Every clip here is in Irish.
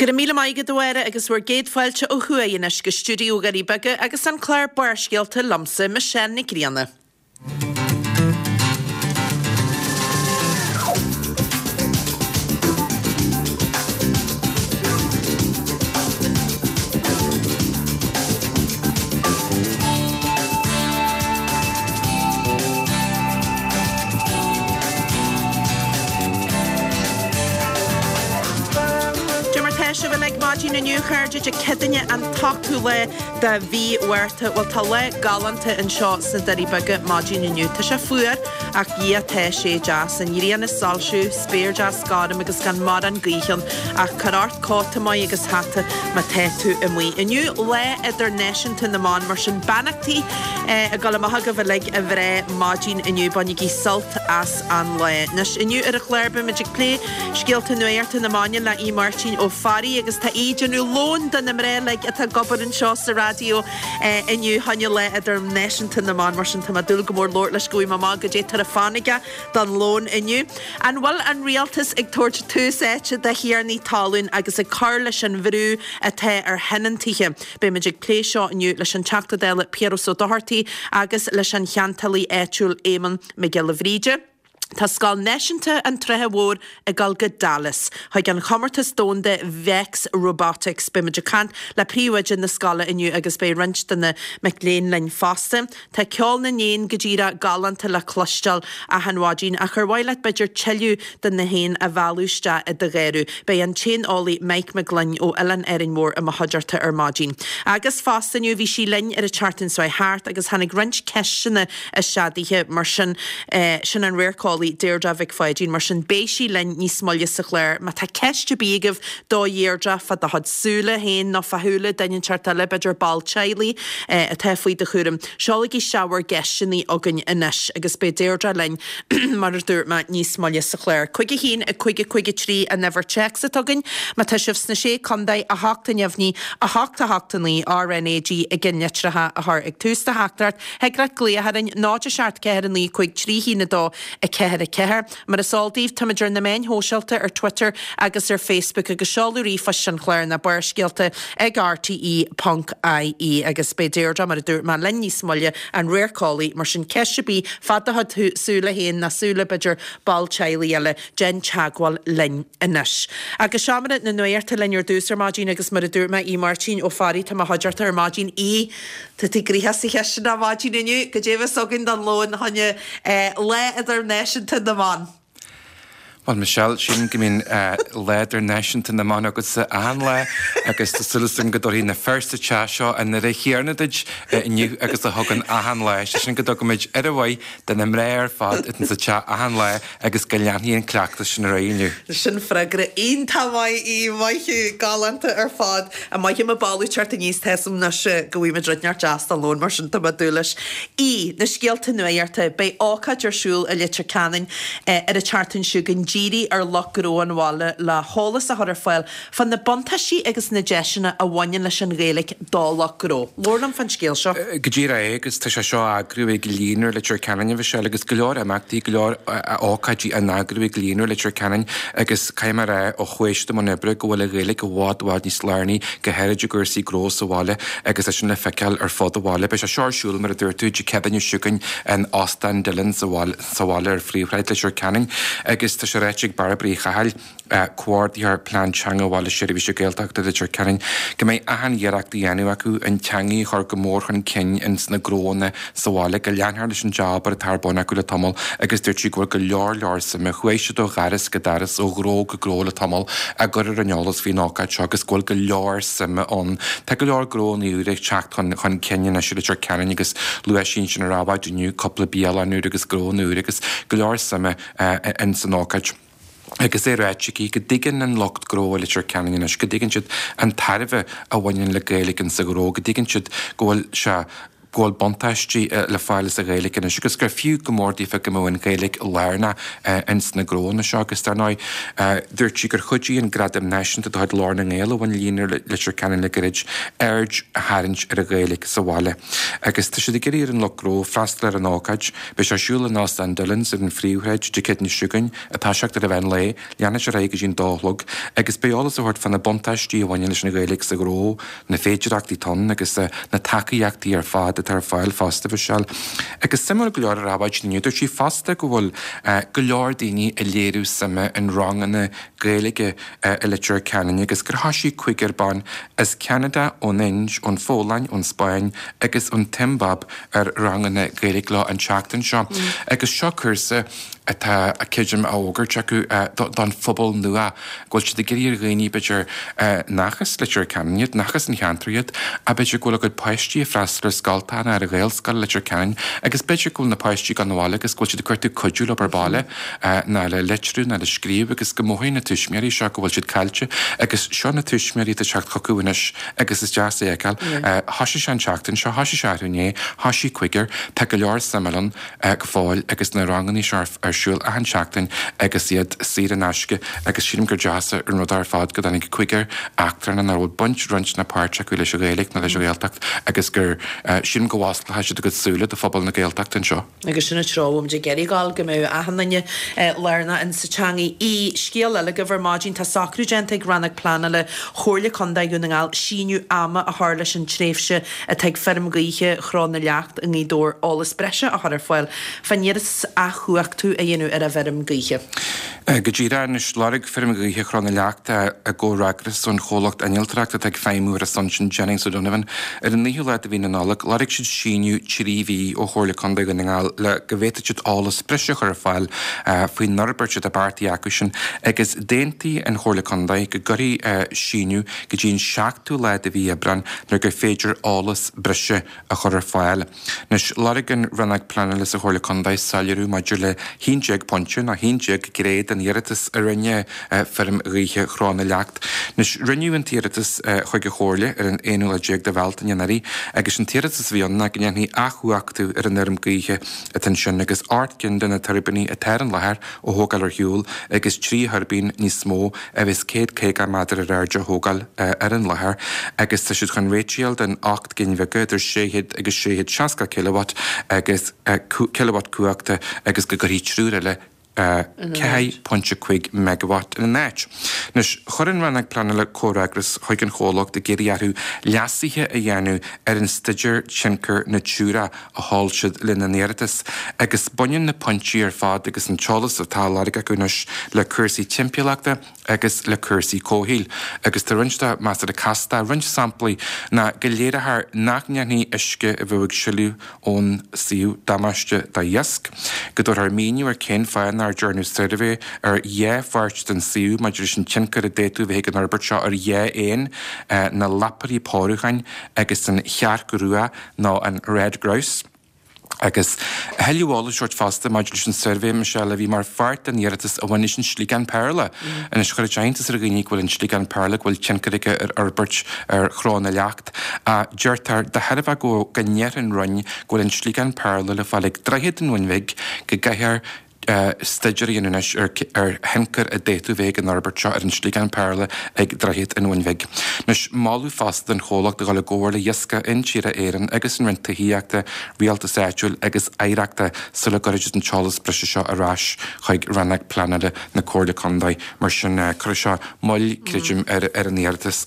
Go raibh míle maith agat a Mháire agus bhur gcéad fáilte ó thuaidh anois go stiúideo Dhoirí Beaga agus an clár Barrscéalta liomsa, Michelle Nic Grianna. Dé mar tá sibh uilig maidin inniu, a chairde, Dé Céadaoine an t-ochtú lá de mhí Mhárta. Bhuel, tá lá galánta anseo sna Doirí Beaga maidin inniu. Tá sé fuar, ach Dhia tá sé deas. An ghrian ag soilsiú, spéir deas gorm agus gan mórán gaoithe ann. Ach cuir ort cóta maith agus hata má tá tú amuigh. Inniu Lá Idirnáisiúnta na mBan, mar sin beannachtaí ag dul amach agaibh uilig a mhná maidin inniu. Bainigí sult as an lá. Anois, inniu ar an chlár beimid ag plé scéalta nuachta na maidine le Aodh Máirtín Ó Fearraigh agus tá Aodh ag déanamh lón do na mná uilig atá ag obair anseo sa raidió inniu fá choinne Lá Idirnáisiúnta na mBan. Mar sin tá mé ag dúil go mór labhairt leis go bhfaighidh mé amach goidé atá ar fonn aige don lón inniu. An bhfuil an rialtas ag tabhairt tús áite do thiarnaí talún agus ag cur leis an bhrú atá ar thionóntaithe? Beimid ag plé seo inniu leis an Teachta Dála Piaras Ó Dochartaigh agus leis an cheantálaí áitiúil Éamonn Mac Giolla Bhríde. Tá Scoil Náisiúnta an tSratha Mhóir ag dul go Dallas chuig an chomórtas domhanda Vex Robotics. Beimid ag caint le príomhoide na scoile inniu agus beidh roinnt de na mic léinn linn fosta. Tá ceol na n-éan go díreach galánta le cloisteáil achan mhaidin, ach ar mhaith leat b'fhéidir tuilleadh de na héin a mhealladh isteach i do gharradh? Beidh an t-éaneolaí Mike Mac Gloinn ó Oileán Árainn Mhór i mo chuideachta ar maidin. Agus fosta inniu, bhí sí linn ar an tseachtain seo thart agus tháinig roinnt ceisteanna isteach daoithe, mar sin, sin an radharceolaí Deirdre Mhic Pháidín, mar sin beidh sí linn níos moille sa chlár. Má tá ceist ar bith agaibh do Dheirdre fá do chuid súile féin nó fá shúile duine inteacht eile, b'fhéidir ball teaghlaigh atá faoi do chúram. Seolaigí isteach bhur gceisteanna chugainn anois agus beidh Deirdre linn, mar a dúirt mé, níos moille sa chlár. 5 1 5 5 3 an uimhir téacs atá againn. Má tá sibh sna Sé Contae, 8 neamhní, 8 8 9, RnaG i gceannlitreacha a chur ag tús do theachtaireacht. Thig leat glaoch orainn, 0 7 4 9 5 3 1 2 4 4. Mar is eol daoibh, táimid ar na meáin shóisialta, ar Twitter agus ar Facebook, agus seoladh ríomhphoist an chláir ná Barrscéalta ag rte ponc ie. Agus beidh Deirdre, mar a dúirt mé, linn níos moille, an radharceolaí, mar sin ceist ar bith fá do chuid súile féin nó súile, b'fhéidir, ball teaghlaigh eile, déan teagmháil linn anois. Agus seomra na nuachta linn ar dtús ar maidin agus mar a dúirt mé, Aodh Máirtín Ó Fearraigh, tá i mo chuideachta ar maidin. Aodh, Tá tú gnoitheach sa chistin ar maidin inniu. Goidé a bheas againn don lón fá choinne Lá Idirnáisiúnta na mBan? Bhuel, Michelle, sílim go mbíonn Lá Idirnáisiúnta na mBan agatsa achan lá agus tá súil agam go dtabharfaidh na fir sa teach seo an aire chéanna duit inniu agus a thugann achan lá. Sé sin go dtugaimid aire mhaith do na mná ar fad atá sa teach achan lá agus go leanfaidh an cleachtas sin ar aghaidh inniu. Sin freagra iontach maith, Aodh, maith thú, galánta ar fad. An maith mo boladh teacht aníos, tá 'fhios a'm anois go bhfaighimid rud inteacht deas don lón, mar sin tá mé ag dúil leis. Aodh, na scéalta nuachta, beidh ócáid ar siúl i Leitir Ceanainn ar an tseachtain seo chugainn dírithe ar lucht gnó an bhaile le heolas a chur ar fáil fá na buntáistí agus na deiseanna a bhaineann leis an Ghaeilge do lucht gnó. Labhair liom fán scéal seo. Go díreach é, agus tá sé seo á eagrú ag Líonra Leitir Ceanainn, a Mhichelle, agus go leor imeachtaí, go leor ócáidí á n-eagrú ag Líonra Leitir Ceanainn agus caithfidh mé a rá ó chuaigh siad i mbun oibre go bhfuil an Ghaeilge i bhfad, bhfad níos lárnaí, go háirid i gcúrsaí gnó sa bhaile agus é sin le feiceáil ar fud an bhaile. Beidh sé seo ar siúl, mar a dúirt tú, Dé Céadaoine seo chugainn in Óstán Dillon sa bhaile ar Phríomhshráid Leitir Ceanainn agus tá sé ráite ag Bairbre Uí Chathail, Comhordaitheoir Plean Teanga Bhaile Seirbhíse Gaeltachta Leitir Ceanainn, go mbeidh achan iarracht á dhéanamh acu an teangaidh a chur go mór chun cinn ins na gnóanna sa bhaile, go leanfar leis an jab atá ar bun acu le tamall agus dúirt sí go bhfuil go leor leor suime, chuaigh siad ó dhoras go doras, ó ghnó go gnó le tamall á gcur ar an eolas faoin ócáid seo agus go bhfuil go leor suime ann. Tá go leor gnóanna úra ag teacht chun chun cinn anois i Leitir Ceanainn agus luaigh sí ansin ar Adhmhaidin inniu cúpla bialann úr agus gnónna úr agus go leor suime ins an ócáid. Agus é ráite aici go dtuigeann an lucht gnó i Leitir Ceanainn anois, go dtuigeann siad an tairbhe a bhaineann le Gaeilge insa ghnó, go dtuigeann siad go bhfuil sé. Go bhfuil buntáistí le fáil as an Ghaeilge anois agus gur fiú go mór daofa go mbeadh an Ghaeilge lárnach ins na gnóanna seo agus dar ndóigh dúirt sí gur chuidigh an Gradam Náisiúnta de chuid Ghlór na nGael a bhain Líonra Leitir Ceanainn le gairid aird a tharraingt ar an Ghaeilge sa bhaile agus tá siad ag iarraidh ar an lucht gnó freastal ar an ócáid. Beidh sé ar siúl in Óstán Dillon's ar an Phríomhshráid Dé Céadaoine seo chugainn ag toiseacht ar an mheán lae. Leanfaidh sé ar aghaidh go dtí an dó a chlog agus beidh eolas á thabhairt fá na buntáistí a bhaineann leis an Ghaeilge sa ghnó, na féidireachtaí atá ann agus na tacaíochtaí ar fad atá ar fáil fosta, a Mhichelle. Agus suimiúil go leor ar maidin inniu, dúirt sí fosta go bhfuil go leor daoine ag léiriú suime in ranganna Gaeilge i Leitir Ceanainn agus gur thoisigh cúigear ban as Ceanada, ón Ind, ón Pholainn, ón Spáinn agus ón tSiombáib ar ranganna Gaeilge leo an tseachtain seo. Agus seo cúrsa atá, creidim, á fhógairt acu don phobal nua, go bhfuil siad ag iarraidh ar dhaoine, b'fhéidir, nach as Leitir Ceanainn iad, nach as an cheantar iad, ach b'fhéidir go bhfuil a gcuid páistí ag freastal ar scoltacha nó ar an Ghaelscoil i Leitir Ceanainn agus b'fhéidir go bhfuil na páistí ag dul abhaile agus go bhfuil siad ag cuartú cuidiú leo ar baile, ná le litriú ná le scríobh agus go mothaíonn na tuismitheoirí seo go bhfuil siad caillte agus seo na tuismitheoirí atá ag teacht chucu anois agus is deas é a fheiceáil. Thoisigh sé an tseachtain seo, thoisigh sé arú inné, thoisigh cúigear, tá go leor suime ann. go fóill agus na ranganna seo ar siúl achan seachtain agus iad saor in aisce agus sílim gur deas an rud ar fad go dtáinig cúigear eachtrannach nach bhfuil baint, roinnt ná páirt acu leis an Ghaeilge ná leis an Ghaeltacht agus gur, sílim go bhfosclóidh siad a gcuid súile do phobal na Gaeltachta anseo. Agus sin an treo a bhfuil muid ag iarraidh dul, go mbeadh achan duine lárnach in sa teangaidh. I scéal eile agaibh ar maidin, tá socrú déanta ag Rannóg Pleanála Chomhairle Contae Dhún na nGall síneadh ama a chur leis an tréimhse atá ag feirm gaoithe Chró na Leacht i nGaoth Dobhair eolas breise a chur ar fáil fán iarratas athchumhachtú a dhéanamh ar an bhfeirm gaoithe. Go díreach anois, lorg Feirm Ghaoithe Chró na Leacht i gcomhfhreagras ón chomhlacht innealtóireachta atá ag feidhmiú ar a son sin, Jennings O'Donovan, ar an 9ú lá de mhí na Nollag, lorg siad síneadh 3 mhí ó Chomhairle Contae Dhún na nGall le go bhféadfadh siad eolas breise a chur ar fáil faoin fhorbairt atá beartaithe acu sin agus d'aontaigh an Chomhairle Contae go gcuirfí síneadh go dtí an 7ú lá de mhí Aibreáin nuair gur féidir eolas breise a chur ar fáil. Anois, lorg an Rannóg Pleanála sa Chomhairle Contae soiléiriú maidir le 11 pointe nó 11 gné den iarratas a rinne Feirm Ghaoithe Chró na Leacht. Anois, rinneadh an t-iarratas chuig an Chomhairle ar an aonú lá déag de Bhealtaine anuraidh agus an t-iarratas a bhí ann ná go ndéanfaí athchumhachtú ar an fheirm gaoithe atá ansin agus 8 gcinn de na tuirbíní atá ar an láthair a thógáil ar shiúl agus 3 thuirbín níos mó a bheas 150 méadar ar airde a thógáil ar an láthair agus tá siad chun réiteach a fháil don 8 gcinn bheaga idir 600 agus 660 kilowatt agus kilowatt cumhachta agus go gcuirfí triúr eile 4.5 megawatt ina n-áit. Anois, chuir an Rannóg Pleanála comhfhreagras chuig an chomhlacht ag iarraidh orthu leasuithe a dhéanamh ar an Staidéar Tionchair Natura a sheol siad lena n-iarratas, agus baineann na pointí ar fad agus an t-eolas atá á lorg acu anois le cúrsaí timpeallachta agus le cúrsaí comhshaoil. Agus tá roinnt de measartha casta. Roinnt samplaí ná go léireofar nach ndéanfaidh uisce a bheadh ag sileadh ón suíomh damáiste d'iasc, go dtabharfar míniú ar cén fáth nár dearnadh suirbhé ar dhá pháirt den suíomh maidir leis an tionchar a d'fhéadfadh a bheith ag an fhorbairt seo ar dhá éan, na lapairí pórúcháin agus an chearc rua. nó an Red Grouse. Agus a thuilleadh eolais a thabhairt fosta maidir leis an suirbhé, Michelle, a bhí mar pháirt den iarratas a bhain leis an sliogán péarla. Anois, chuir sé iontas ar dhaoine go bhfuil an sliogán péarla, go bhfuil tionchar aige ar fhorbairt ar Chró na Leacht. Ach deirtear, de thairbhe go go ndeir an Roinn go bhfuil an sliogán péarla le fáil ag Droichead an Bhun Bhig, go gcaithfear staidéar a dhéanamh anois ar ar thionchar a d'fhéadfadh bheith ag an fhorbairt seo ar an sliogán péarla ag Droichead an Bhun Bhig. Anois, moladh fosta don chomhlacht a dhul i gcomhar le hIascach Intíre Éireann agus an Roinn Tithíochta, Rialtais Áitiúil agus Oidhreachta sula gcuirfidh siad an t-eolas breise seo ar ais chuig Rannóg Pleanála na Comhairle Contae. Mar sin, cuirfidh seo moill, creidim, ar an iarratas.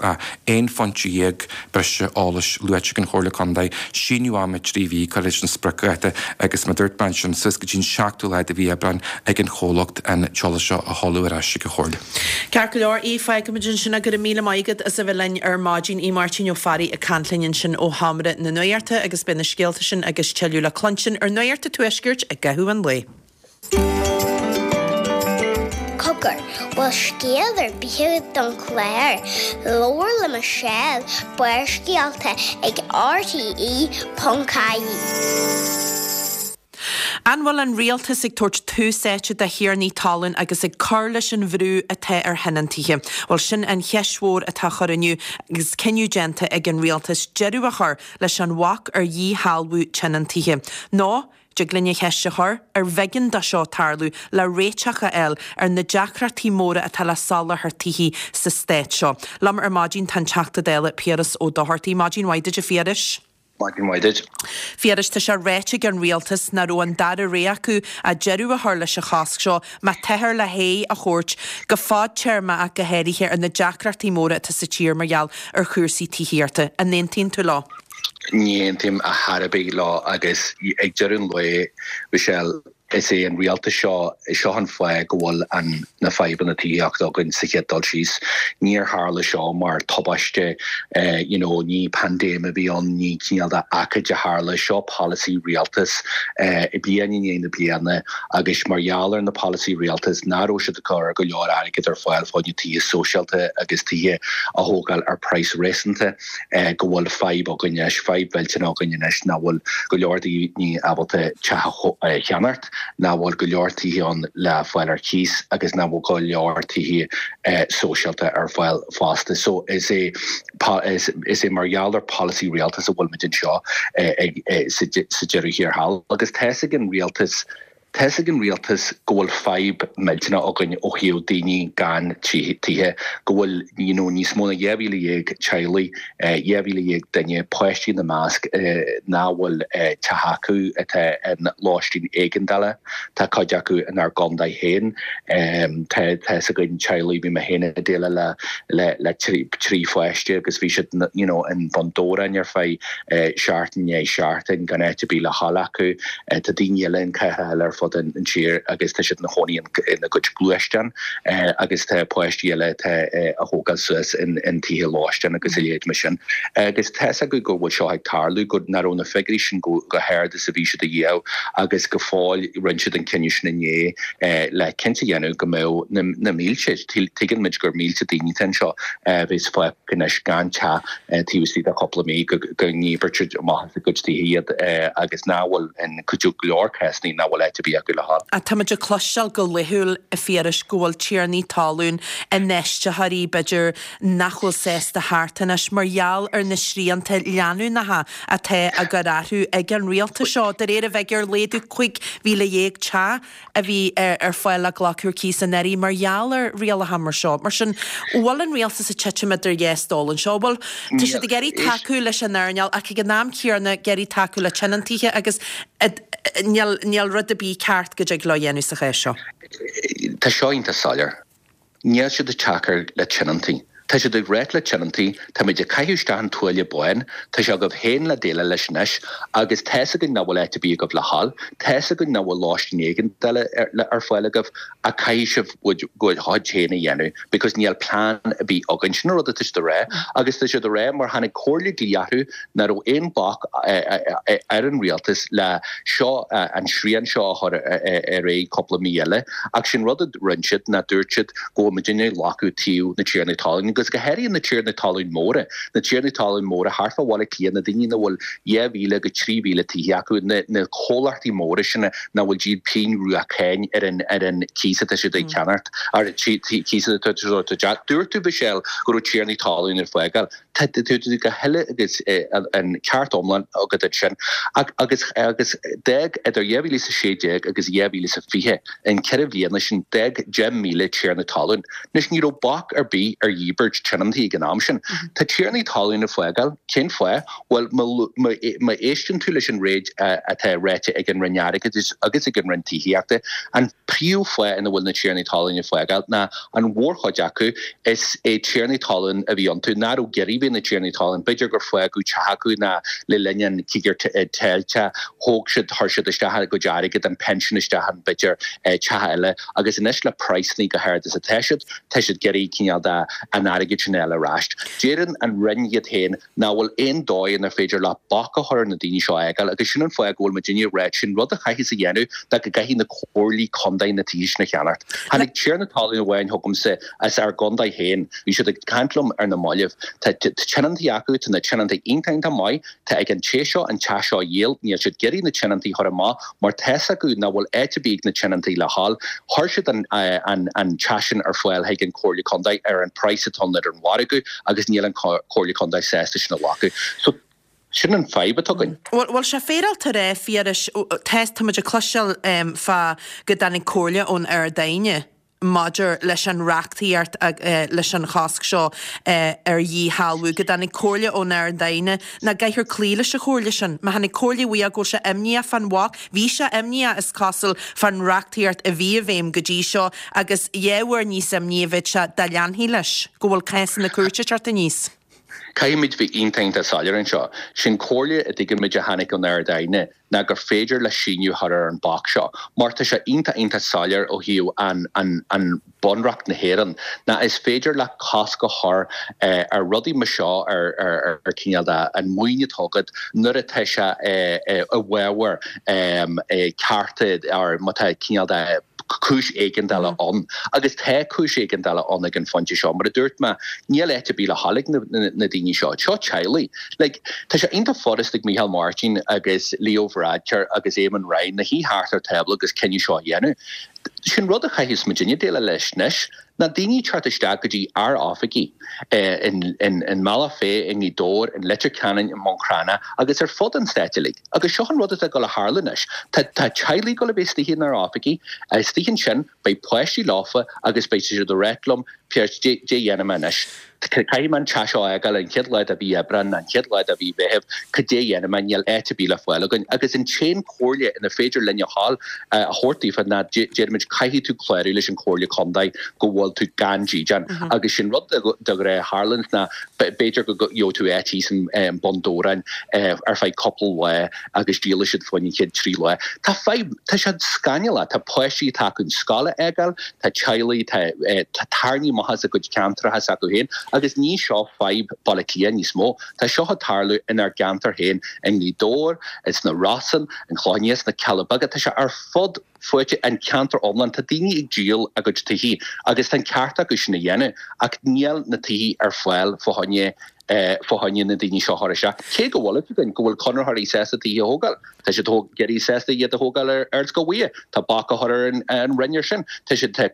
11 phointe breise eolais luaite ag an Chomhairle Contae, síneadh ama 3 mhí curtha leis an spriocdháta agus mar a dúirt mé ansin, suas go dtí an 7ú lá de mhí Aibreáin ag an chomhlacht an t-eolas seo a sheoladh ar ais chuig an Chomhairle. Ceart go leor, Aodh, fágfaimid ansin é. Go raibh míle maith agat as a bheith linn ar maidin. Aodh Máirtín Ó Fearraigh ag caint linn ansin ó Sheomra na Nuachta agus beidh na scéalta sin agus tuilleadh le cluinstin ar Nuacht an Tuaiscirt i gcaitheamh an lae. Cogar, bhfuil scéal ar bith agat don chlár? Labhair le Michelle, Barrscéalta ag RTE.ie. An bhfuil an rialtas ag tabhairt tús áite do thiarnaí talún agus ag cur leis an bhrú atá ar thionóntaithe? Bhuel, sin an cheist mhór atá á chur inniu agus cinneadh déanta ag an rialtas deireadh a chur leis an bhac ar dhíshealbhú tionóntaithe. Nó, dtig linn an cheist a chur, ar bh'éigean dó seo tarlú le réiteach a fháil ar na deacrachtaí móra atá le soláthar tithe sa stát seo? Liom ar maidin tá an Teachta Dála Piaras Ó Dochartaigh. Maidin mhaith duit a Phiarais. Maidin mhaith duit. Phiarais, tá sé ráite ag an rialtas nach raibh an dara rogha acu ach deireadh a chur leis an chosc seo má táthar le haghaidh a thabhairt, go fadtéarmach ach go háirithe, ar na deacrachtaí móra atá sa tír mar gheall ar chúrsaí tithíochta. An aontaíonn tú leo? Ní aontaím ar chor ar bith leo agus ag deireadh an lae, Michelle, Is é an rialtas seo, seo an fáth go bhfuil an na fadhbanna tithíochta againn sa chéad dul síos. Níor tharla seo mar tubaiste, you know, ní paindéim a bhí ann, ní cineál de ócáid a tharla, seo polasaí rialtas bliain i ndiaidh na bliana agus mar gheall ar na polasaí rialtas nach raibh siad ag cur go leor airgead ar fáil fá choinne tithe sóisialta agus tithe a thógáil ar praghas réasúnta. go bhfuil fadhb againn anois, fadhb mhillteanach againn anois nach bhfuil go leor daoine ábalta teach a cheannacht, nach bhfuil go leor tithe ann le fáil ar cíos agus nach bhfuil go leor tithe sóisialta ar fáil fosta. So is é is é mar gheall ar polasaí rialtais a bhfuil muid anseo sa deireadh thiar thall agus tá's ag an rialtas Tá's ag an rialtas go bhfuil fadhb millteanach againn ó thaobh daoine gan tithe, go bhfuil you know níos mó ná 12,000 teaghlaigh, 12,000 duine, páistí ina measc, nach bhfuil teach acu, atá in lóistín éigeandála. Tá cuid acu inár gcontae féin. Tá tá's againn teaghlaigh, bhí mé féin ag déileáil le le le trí pháiste agus bhí siad you know in Bun Dobhráin ar feadh seachtain i ndiaidh seachtain gan áit ar bith le dhul acu. Tá daoine eile in cathracha eile ar fud an tír agus tá siad ina chónaí ina gcuid gluaisteán agus tá páistí eile atá á thógáil suas in tithe lóistín agus a leithéid mar sin. Agus tá's acu go bhfuil seo ag tarlú, go nach raibh na figiúirí sin chomh hard is a bhí siad a dhíobh agus go fóill rinne siad an cinneadh sin inné le cinnte a dhéanamh go mbeadh na mílte, tuigeann muid gur mílte daoine atá anseo a bheas fágtha anois gan teach taobh istigh de chúpla mí go ndíbirtear amach as a gcuid tithe iad agus nach bhfuil in go leor cásanna nach bhfuil áit ar bith acu le dhul. Táimid ag cloisteáil go laethúil, a Phiarais, go bhfuil tiarnaí talún, infheistitheoirí, b'fhéidir, nach bhfuil sásta theacht anois mar gheall ar na srianta leanúnacha atá á gcur orthu ag an rialtas seo. De réir an bhfigiúr, laghdú 15,000 teach a bhí ar fáil le glacadh ar cíos anuraidh mar gheall ar rialacha mar seo. Mar sin, an bhfuil an rialtas ag titim idir dhá stól anseo? Bhuel, tá siad ag iarraidh tacú leis an earnáil ach ag an am céanna ag iarraidh tacú le tionóntaithe agus níl, níl rud ar bith ceart go dtig leo a dhéanamh sa chás seo. Tá seo iontach soiléir. Níl siad ag tacú le tionóntaí. Tá siad ag ráit le tionóntaí, táimid ag caitheamh isteach an tuáille bán, tá sé agaibh féin le déileáil leis anois agus tá's againn nach bhfuil áit ar bith agaibh le dhul, tá's againn nach bhfuil lóistín éigeandála ar fáil agaibh ach caithfidh sibh bhur gcuid féin a dhéanamh because níl plean ar bith againn. Sin an rud atá siad a rá agus tá siad a rá mar tháinig comhairle dlí orthu nach raibh aon bhac ar an rialtas le seo, an srian seo a chur ar aghaidh cúpla mí eile. Ach sin rud a rinne siad ná dúirt siad go bhfuil muidinne ag glacadh taobh na tiarnaí talún agus go háirithe na tiarnaí talún móra, na tiarnaí talún móra thart fá Bhaile Átha Cliath, na daoine nach bhfuil 2,000 go 3,000 tithe acu, na comhlachtaí móra sin nach bhfuil ag díol pingin rua cáin ar an ar an cíos atá siad ag ceannacht, ar an cíos atá siad Dúirt tú, Michelle, go raibh tiarnaí talún ag fágáil. Tá tú go huile agus an ceart iomlán agat ansin. Ach agus agus d'fhág idir 2016 agus 2020, in 4 bhliana sin, d'fhág 10,000 tiarna talún. Anois ní raibh bac ar bith ar dhíbirt tionóntaí ag an am sin. Tá tiarnaí talún ag fágáil. Cén fáth? Bhuel, má éisteann tú leis an réid atá ráite ag an Roinn Airgeadais agus ag an Roinn Tithíochta, an príomhfháth ina bhfuil na tiarnaí talún ag fágáil ná an mhórchuid acu, is é tiarnaí talún a bhí iontu, nach raibh ag iarraidh bheith ina dtiarnaí talún. B'fhéidir gur fágadh teach acu ná le linn an cíogair teilte, thóg siad, chuir siad isteach a gcuid airgid, an pension isteach in, b'fhéidir, teach eile agus anois le praghsanna chomh hard is atá siad, tá siad ag iarraidh cineál de an airgead sin a fháil ar ais. Deireann an Roinn iad féin nach bhfuil aon dóigh inar féidir leat bac a chur ar na daoine seo a fhágáil agus sin an fáth go bhfuil muidinne ag ráit sin rud a chaithfeas a dhéanamh ná go gcaithfidh na comhairlí contae na tithe sin a cheannacht. Tháinig tiarna talún amháin chugamsa as ár gcontae féin, bhí siad ag caint liom ar na mallaibh, tá. tionóntaí acu, tá na tionóntaí iontach iontach maith, tá ag an té seo an teach seo a dhíol, níl siad ag iarraidh na tionóntaí a chur amach mar tá's acu nach bhfuil áit ar bith ag na tionóntaí le dhul. Chuir siad an an teach sin ar fáil chuig an Comhairle Contae ar an praghas atá ann ar an mhargadh agus níl an Comhairle Contae sásta sin a ghlacadh. So sin an fadhb atá againn. Bhuel, bhfuil sé féaráilte a rá, Phiarais, tá, tá muid ag cloisteáil fá go dtáinig comhairle ón Ard-Aighne maidir leis an reachtaíocht leis an chosc seo ar dhíshealbhú, go dtáinig comhairle ón Ard-Aighne nach gcaithfear cloí leis an chomhairle sin. Má tháinig comhairle uaidh go bhfuil sé imníoch fán bhac, bhí sé imníoch is cosúil fán reachtaíocht a bhí i bhfeidhm go dtí seo agus dhá uair níos imní a bheadh sé dá leanfaí leis, go bhfuil cásanna cúirte ag teacht aníos. Caithfimid bheith iontach iontach soiléir anseo. Sin comhairle a dtuigimid a tháinig ón Ard-Aighne ná gur féidir le síneadh a chur ar an bac seo mar tá sé iontach iontach soiléir ó thaobh an an an Bunreacht na hÉireann ná is féidir leat cosc a chur ar rudaí mar seo ar ar ar cineál de an maoin atá agat nuair atá sé i bhfabhar cearta or má tá cineál de cúis éigeandála ann. Agus tá cúis éigeandála ann ag an phointe seo. Mar a dúirt mé, níl áit ar bith le dhul ag na daoine seo. Seo teaghlaigh. Like, tá sé iontach furast ag Micheál Martin agus Leo Varadkar agus Eamon Ryan a shuí thart ar tábla agus cinneadh seo a dhéanamh. Sin rud a chaithfeas muidinne déileáil leis anois, ná daoine ag teacht isteach go dtí ár oifigí i mBealach Féich, i nGaoth Dobhair, in Leitir Ceanainn, i mBun Cranncha agus ar fud an stáit uilig. Agus seo an rud atá ag dul a tharlú anois. Tá teaghlaigh ag dul a bheith istigh inár oifigí. Istigh ansin, beidh páistí leofa agus beidh siad ag ráit liom, Piaras, dé dhéanfaidh mé anois? Caithfidh mé an teach seo a fhágáil an chéad lá de mhí Aibreán, an chéad lá de mhí Mheithimh, cad é dhéanfaidh mé? Níl áit ar bith le fáil againn. Agus an t-aon chomhairle inar féidir linn a ghabháil a thabhairt daofa ná déarfaimid caithfidh tú clárú leis an Chomhairle Contae go bhfuil tú gan dídean. Agus sin rud de ghnáth a tharlaíonns ná b'fhéidir go gheobhaidh tú áit thíos i mBun Dobhráin ar feadh cúpla lá agus díolfaidh siad fá choinne an chéad trí lá. Tá fadhb, tá sé scannalach, tá páistí atá acu an scoil a fhágáil, tá teaghlaigh, tá tarraingthe amach as a gcuid ceantracha s'acu féin agus ní seo fadhb Baile Átha Cliath níos mó, tá seo ag tarlú inár gceantar féin i nGaoth Dobhair, sna Rosann, an Clochán Liath, sna Cealla Beaga, tá sé ar fud fuaite an ceantar iomlán. Tá daoine ag díol a gcuid tithe agus tá an ceart acu sin a dhéanamh ach níl na tithe ar fáil fá choinne fá choinne na daoine seo a chur isteach. Cé go bhfuil a fhios againn go bhfuil conraitheoirí sásta tithe a thógáil, tá siad ag iarraidh sásta iad a thógáil ar Ardscoil Mhuire, tá bac á chur ar an Roinn ar sin. Tá siad tá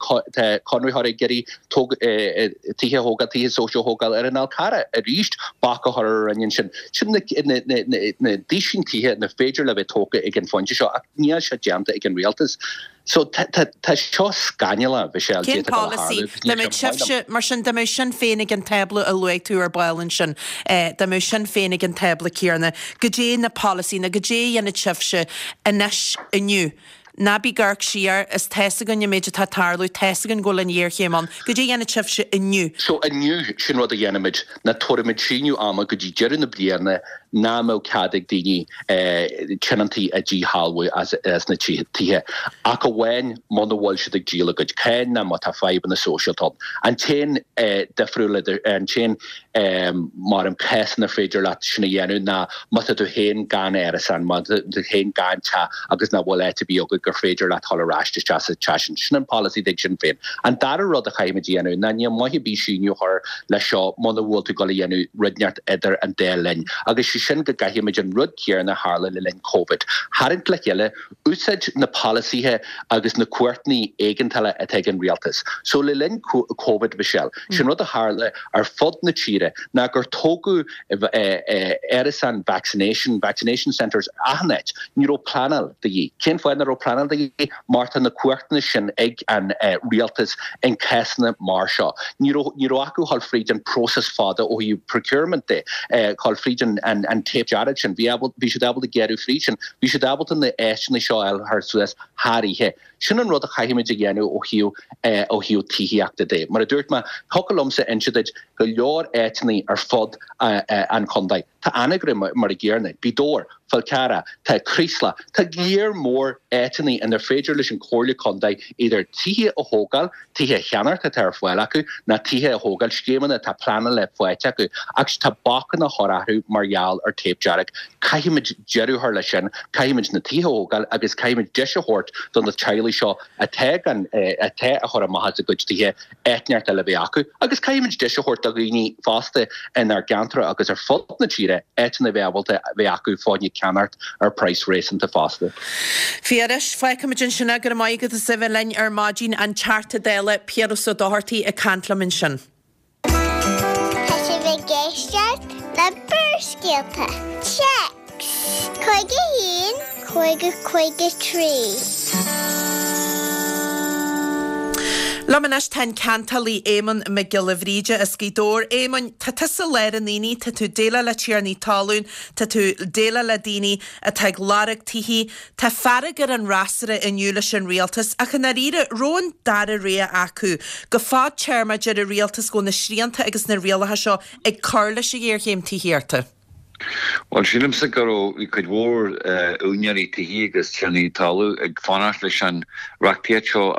conraitheoirí ag iarraidh tithe a thógáil, tithe sóisialta a thógáil ar an Fhál Carrach, arís bac á chur ar an Roinn ansin. Sin na duisín tithe nach féidir le bheith tógtha ag an phointe seo ach níl sé déanta ag an rialtas. So tá seo scannalach, Michelle, Cén polasaí? Dá mbeadh sibhse, mar sin, dá mbeadh Sinn Féin ag an tábla a luaigh tú ar ball ansin, dá mbeadh Sinn Féin ag an tábla céanna, goidé na polasaí nó goidé a dhéanfadh sibhse anois, inniu? Ná bí ag amharc siar, is tá's againn an méid atá ag tarlú, tá's againn go bhfuil an ghéarchéim ann. Goidé a dhéanfadh sibhse inniu? So inniu, sin rud a dhéanfaimid, ná tabharfaimid síneadh ama go dtí deireadh na bliana nach mbeadh cead ag daoine tionóntaí a dhíshealbhú as na tithe, ach amháin muna bhfuil siad ag díol a gcuid cáin ná má tá fadhbanna sóisialta ann. An t-aon difriúil idir, an t-aon mar an cás inar féidir leat sin a dhéanamh ná má tá tú féin gan árasán, má tá tú féin gan teach agus nach bhfuil áit ar bith agat gur féidir leat dhul ar ais isteach sa teach sin. Sin an polasaí ag Sinn Féin. An dara rud a chaithfimid a dhéanamh ná níl maith ar bith síneadh a chur leis seo muna bhfuil tú ag dul a dhéanamh rud inteacht idir an dá linn agus sé sin go gcaithfimid an rud céanna a tharla le linn Covid. Tharraingt le chéile, úsáid na polasaithe agus na cumhachtanna éigeantála atá ag an rialtas. So le linn Covid, Michelle, sin rud a tharla ar fud na tíre ná gur tógadh árasáin vaccination, vaccination centres achan áit. Ní raibh pleanáil de dhíth. Cén fáth nach raibh pleanáil de dhíth? Mar tá na cumhachtanna sin ag an rialtas in cásanna mar seo. Ní raibh, ní raibh acu dhul fríd an próiseas fada ó thaobh procurement de, dhul fríd an, an, an téip dearg sin. Bhí, bhí siad ábalta gearradh fríd sin. Bhí siad ábalta na áiteanna seo a fháil suas thar oíche. Sin an rud a chaithfimid a dhéanamh ó thaobh ó thaobh tithíochta de. Mar a dúirt mé, thiocfadh liomsa inse duit go leor áiteanna ar fud an chontae. Tá Anagaire mar an gcéanna, Gaoth Dobhair, Fál Carrach, tá Creeslough, tá léar mór áiteanna inar féidir leis an Chomhairle Contae idir tithe a thógáil, tithe a cheannacht atá ar fáil acu, ná tithe a thógáil, scéimeanna atá pleanáilte faighte acu, ach tá bacanna á chur orthu mar gheall ar tape dearg. Caithfimid deireadh a chur leis sin, caithfimid na tithe a thógáil agus caithfimid deis a thabhairt do na teaghlaigh seo atá gan, atá á chur amach as a gcuid tithe, áit inteacht eile a bheith acu agus caithfimid deis a thabhairt do dhaoine fosta inár gceantar agus ar fud na tíre áiteanna a bheith ábalta a bheith acu fá choinne ceannacht ar praghas réasúnta fosta. Piaras, fágfaimid ansin é, go raibh maith agat as a bheith linn ar maidin, an Teachta Dála Piaras Ó Dochartaigh ag caint liom ansin. Tá sibh ag éisteacht le Barrscéalta. Téacs 51 50 53. Liom anois tá an ceantálaí Éamonn Mac Giolla Bhríde as Gaoth Dobhair. Éamoinn, tá tusa i lár an aonaigh, tá tú ag déileáil le tiarnaí talún, tá tú ag déileáil le daoine atá ag lorg tithe. Tá fearg ar an fhreasúra inniu leis an rialtas ach i ndáiríre, raibh an dara rogha acu? Go fadtéarmach deir an rialtas go bhfuil na srianta agus na rialacha seo ag cur leis an ghéarchéim tithíochta. Bhuel, sílimse go raibh, bhí cuid mhór úinéirí tithe agus tiarnaí talún ag fanacht leis an reachtaíocht seo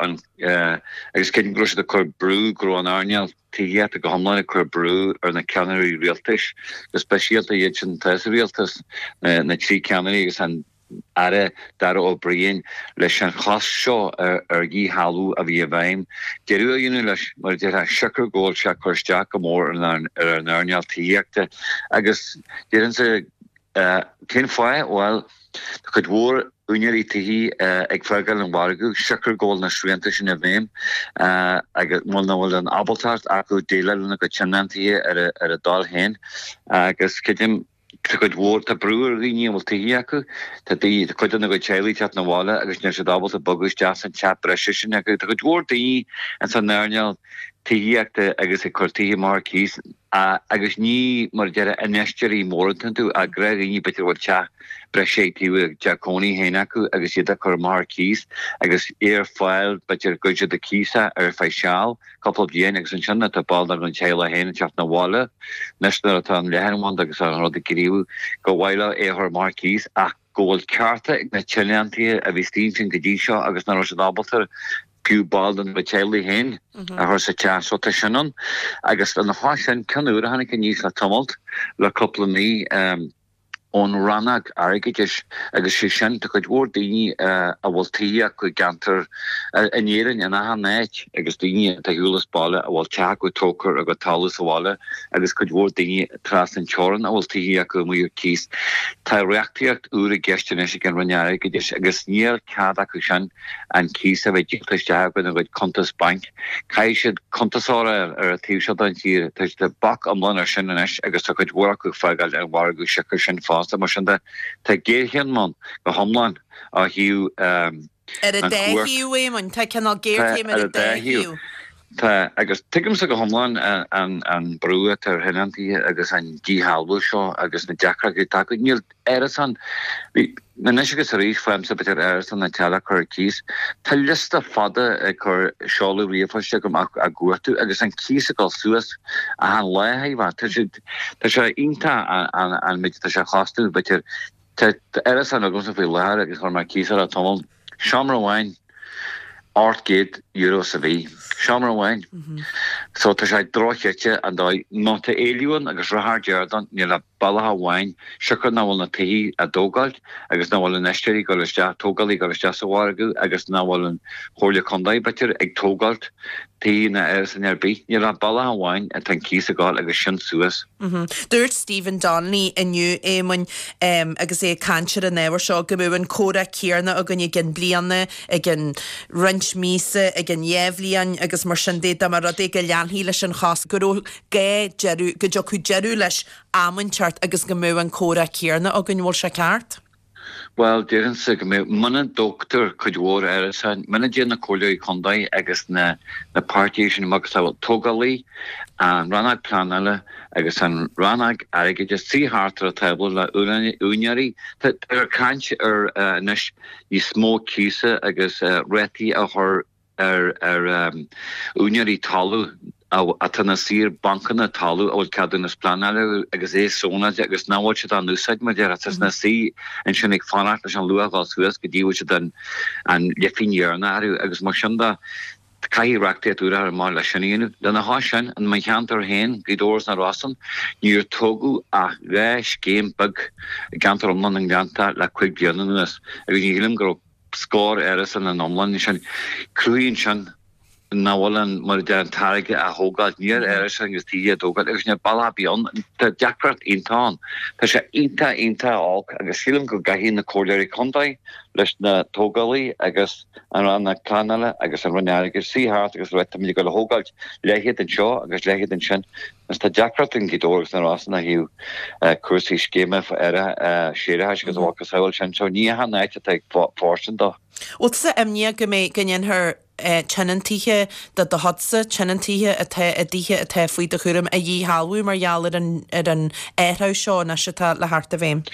agus creidim go raibh siad ag cur brú, go raibh an earnáil tithíochta go hiomlán ag cur brú ar na ceannairí rialtais, go speisialta iad sin atá sa rialtas, na trí ceannairí agus an Aire Darragh O'Brien leis an chosc seo ar dhíshealbhú a bhí i bhfeidhm, deireadh a dhéanamh leis, mar a déarfá, siocair go bhfuil sé ag cur isteach go mór ar an earnáil tithíochta. Agus déarfainnse, cén fáth? Bhuel, tá cuid mhór úinéirí tithí ag fágáil an mhargaidh siocair go bhfuil na srianta sin i bhfeidhm agus bhuel nach bhfuil an ábaltacht acu déileáil lena gcuid tionóntaithe ar a dtoil féin agus creidim Tá cuid mhór, tá brú ar dhaoine a bhfuil tithí acu, tá daoine, tá cuid dena gcuid teaghlaigh ag teacht 'na bhaile agus níl siad ábalta bogadh isteach san teach breise sin acu. Tá cuid mhór daoine ins an earnáil tithíochta agus ag cur tithe amach ar cíos agus ní, mar a déarfá, infheisteoirí móra atá iontu ach gnáthdhaoine b'fhéidir a bhfuil teach breise ag taobh a dteach cónaí féin acu agus iad á cur amach ar cíos agus é ar fáil b'fhéidir go gcuireann siad ar cíos é ar feadh seal. cúpla bliain agus ansin tá ball dá gcuid teaghlaigh féin ag teacht 'na bhaile anois nuair atá an leathanbhanda agus an rud ag gníomhú gur mhaith leo é a chur amach ar cíos ach go bhfuil cearta ag na tionóntaithe a bhí istigh ansin go dtí seo agus nach raibh siad ábalta fiú ball dena gcuid teaghlaigh féin a chur sa teach. So tá sin ann agus lena chois sin ceann úr a tháinig aníos le tamalt le cúpla mí. ón rannóg airgeadais agus sé sin, tá cuid mhór daoine a bhfuil tithe acu i gceantar in Éirinn, in achan áit agus daoine atá ar shiúl as baile a bhfuil teach acu tógtha ar a gcuid talamh sa bhaile agus cuid mhór daoine trasna an teorann a bhfuil tithe acu amuigh ar cíos. Tá reachtaíocht úr i gceist anois ag an Roinn Airgeadais agus níl cead acu sin an cíos a bheith díolta isteach ina gcuid cuntas bainc. Caithfidh siad cuntasóir a fháil ar an taobh seo den tír. Tá tá bac iomlán ar sin anois agus tá cuid mhór acu ag fágáil an mhargadh siocair sin fosta. Mar sin de, tá géarchéim ann go hiomlán ó thaobh Ar an an dá chumhacht. thaobh, Éamoinn. Tá cineál Tá géarchéim ar ar an an dá dá thaobh. thaobh. Tá, agus tuigimse go hiomlán an an brú atá ar thionóntaithe agus an díshealbhú seo agus na deacrachtaí atá acu. Níl árasán, bhí, anois agus arís faighimse b'fhéidir árasán na teaghlach a chur ar cíos. Tá liosta fada ag cur seoladh ríomhphoist agam á gcuartú agus an cíos ag dul suas achan lá, shílfeá. Tá sé, tá sé iontach an an méid atá sé a chostú, b'fhéidir. Tá árasán agamsa faoi láthair agus chuir mé ar cíos é le tamall. Seomra amháin, €800 sa mhí. Seomra amháin. So tá sé dochreidte an dóigh. Má tá éileamh ann agus ráthar dearg ann, níl ach bealach amháin, siocair nach bhfuil na tithe á dtógáilt agus nach bhfuil infheisteoirí ag dul isteach, tógálaí ag dul isteach sa mhargadh agus nach bhfuil an Chomhairle Contae, b'fhéidir, ag tógáilt tithe ná árasáin ar bith. Níl ach bealach amháin atá an cíos ag dul agus sin suas. Dúirt Stephen Donnelly inniu, Éamoinn, agus é ag caint ar an ábhar seo, go mbeadh an comhrá céanna againn i gcionn bliana, i gcionn roinnt míosa, i gcionn dhá bhliain agus mar sin de, dá mba rud é go leanfaí leis an chosc, go raibh gá deireadh, go dtiocfadh deireadh leis am inteacht agus go mbeadh an comhrá céanna againn. Bhfuil sé ceart? Bhuel, déarfainnse go mbeadh, muna dtógtar cuid mhór árasáin, muna dtéann na comhairleoirí contae agus na na páirtithe sin macasamhail tógálaí, an rannóg pleanála agus an rannóg airgeadais suí thart ar an tábla le úinéirí, tá caint ar anois níos mó cíosa agus rátaí a chur ar ar úinéirí talún. atá ina suí ar bhancanna talaimh a bhfuil ceadúnas pleanála acu agus é sónáilte agus nach bhfuil siad á n-úsáid mar a déarfá. Tá siad ina suí ansin ag fanacht leis an luach a dhul suas go dtí go bhfuil siad an leifín dheireanach orthu agus mar sin de caithfidh reachtaíocht úr a chur amach leis sin a dhéanamh. Lena chois sin, in mo cheantar féin, Gaoth Dobhair is na Rosann, níor tógadh ach 2 scéim beag i gceantar iomlán na nGleannta le 5 bliana anuas agus ní shílim go raibh scór árasán in iomlán ansin. Cruthaíonn sin nach bhfuil an, mar a deir, an táirge á thógáil. Níl árasáin agus tithe á dtógáil agus níl bealach ar bith ann. Tá deacracht iontach ann. Tá sé iontach, iontach olc agus sílim go gcaithfidh na comhairleoirí contae leis na tógálaithe agus an Rannóg Pleanála agus an Roinn Airgeadais suí thart agus rá táimid ag dul a thógáilt leithéid anseo agus leithéid ansin agus tá deacracht in Gaoth Dobhair agus na Rosann ó thaobh cúrsaí scéime séarachais agus a mhacasamhail sin so ní hea an áit atá ag fóirstean dó. Bhfuil tusa imníoch go mbeidh, go ndéanfar tionóntaithe de do chuidse, tionóntaithe atá i dtithe atá faoi do chúram a dhíshealbhú mar gheall ar an ar an athrú seo anois atá le theacht i bhfeidhm?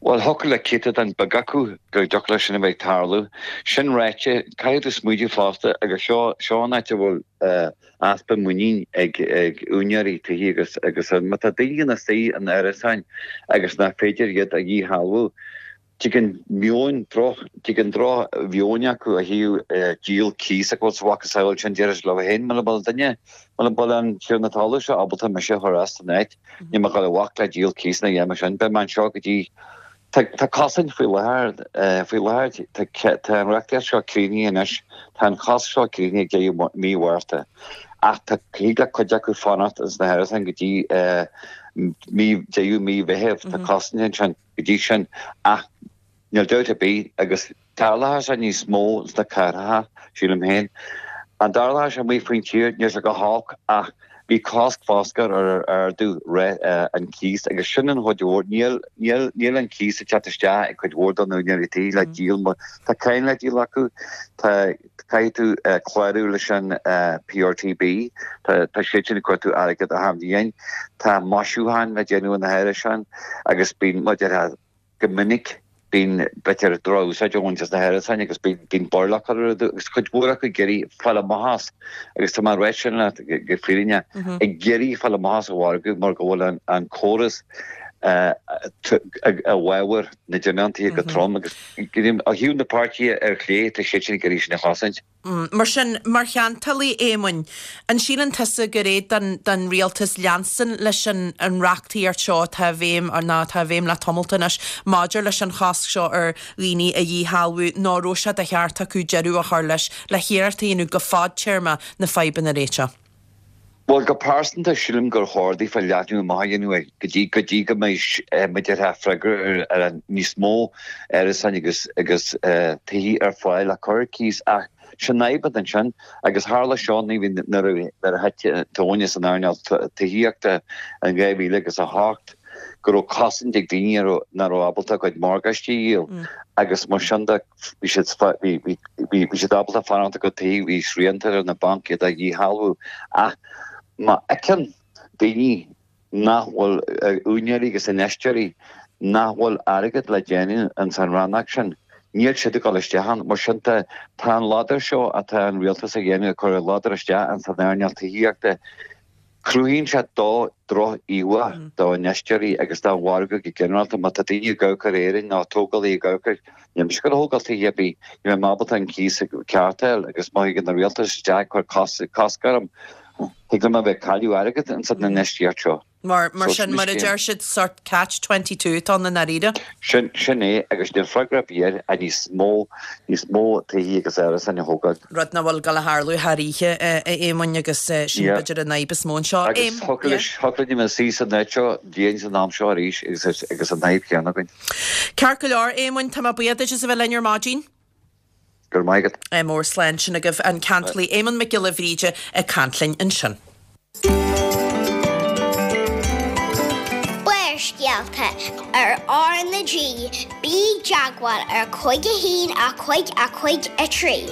Bhuel, thiocfadh le céatadán beag acu go dtiocfadh leis sin a bheith ag tarlú. Sin ráite, caithfidh tú smaoitiú fosta, agus seo, seo an áit a bhfuil easpa muinín ag, ag úinéirí tithe agus, agus má tá daoine ina suí in árasáin agus nach féidir iad a dhíshealbhú, Tigeann meon droch, tigeann droch mheon acu ó thaobh díol cíos ach bhfuil sa mhacasamhail sin déarfaidh siad leo féin muna bhfuil duine, muna bhfuil an tiarna talaimh seo ábalta mise a chur as an áit, níl mé ag dul a bhac le díol cíos ina dhiaidh sin, beidh mé anseo go dtí Tá, tá cosaint faoi láthair, faoi láthair tá, tá an reachtaíocht seo críochnaithe anois, tá an cosc seo críochnaithe ag deireadh mí Mhárta ach tá, thig le cuid acu fanacht ins na hárasáin go dtí mí, deireadh mí Mheithimh, tá cosaint ansin. go dtí sin ach níl dabht ar bith agus tarlóidh sé níos mó sna cathracha, sílim féin. An dtarlóidh sé amuigh faoin tír? Níl sé go holc ach bhí cosc foscair ar ardú an cíos agus sin an chuid mhór. Níl, níl, níl an cíos ag teacht isteach ag cuid mhór de na húinéirí tí le díol mar tá cáin le díol acu, tá, Caithfidh tú clárú leis an PRTB. Tá siad sin ag cuartú airgead achan bhliain. Tá maisiúcháin le déanamh ar na hárasáin agus bíonn, mar a déarfá, go minic bíonn b'fhéidir droch-úsáid á bhaint as na hárasáin agus bíonn baol acu agus cuid mhór acu ag iarraidh fáil amach as agus tá mé ag rá sin leat go fírinneach, ag iarraidh fáil amach as an mhargadh mar go bhfuil an córas i bhfabhar na dtionóntaithe go trom agus Ó thaobh na páirtithe ar chlé, tá siad sin ag iarraidh sin a chosaint. Mar sin, mar cheantálaí, Éamoinn, an síleann tusa gur é don rialtas leanstan leis an reachtaíocht seo atá i bhfeidhm, nó atá i bhfeidhm le tamalt anois, maidir leis an chosc seo ar dhaoine a dhíshealbhú, nó an raibh sé de cheart acu deireadh a chur leis, le hiarracht a dhéanamh go fadtéarma na fadhbanna a réiteach? Bhuel, go pearsanta, sílim gur chóir daofa leathnú amach a dhéanamh air go dtí go dtí go mbeidh mar a déarfá freagra ar an níos mó árasáin agus agus tithe ar fáil le cur ar cíos ach sin fadhb atá ansin agus tharla seo nuair a nuair a thit an tóin as an earnáil tithíochta in 2000 agus 8 go raibh cosaint ag daoine a raibh nach raibh ábalta a gcuid morgáistí a dhíol agus mar sin de Bhí siad, bhí siad ábalta fanacht ina gcuid tithe, bhí srianta ar na bainc iad a dhíshealbhú. Ach má fheiceann daoine nach bhfuil, úinéirí agus infheisteoirí, nach bhfuil airgead le déanamh ins an rannóg sin, níl siad ag dul isteach ann. Mar sin de, tá an ladar seo atá an rialtas a dhéanamh, ag cur an ladar isteach ins an earnáil tithíochta, Cruthaíonn sé droch-íomhá d'infheisteoirí agus don mhargadh go ginearálta. Má tá daoine ag amharc ar Éirinn nó tógálaithe ag amharc air, níl mise ag dul a thógáil tithe ar bith, ní bheidh mé ábalta an cíos ceart a fháil agus má thigeann an rialtas isteach ag cur cosc orm, thig liom a bheith ag cailleadh airgead ins an infheistíocht seo. Mar sin, mar a deir siad, sort catch 22 atá ann i ndáiríre. Sin, sin é, agus níl freagra ar bith air ach níos mó, níos mó tithe agus árasáin a thógáil. Rud nach bhfuil ag dul a tharlú thar oíche, a Éamoinn, agus sin Yeah. b'fhéidir an fhadhb is mó anseo. Agus Éam, thiocfadh yeah. leis, thiocfadh linn a bheith suí san áit seo bliain san am seo arís agus, agus an fhadhb chéanna againn. Ceart go leor, Éamoinn, tá mé buíoch duit as a bheith linn ar maidin. Go raibh maith agat. Ádh mór slán sin agaibh an ceantálaí Éamonn Mac Giolla Bhríde ag caint linn ansin. Barrscéalta ar R na G, bí i dteagmháil ar 5 1 5 5 3.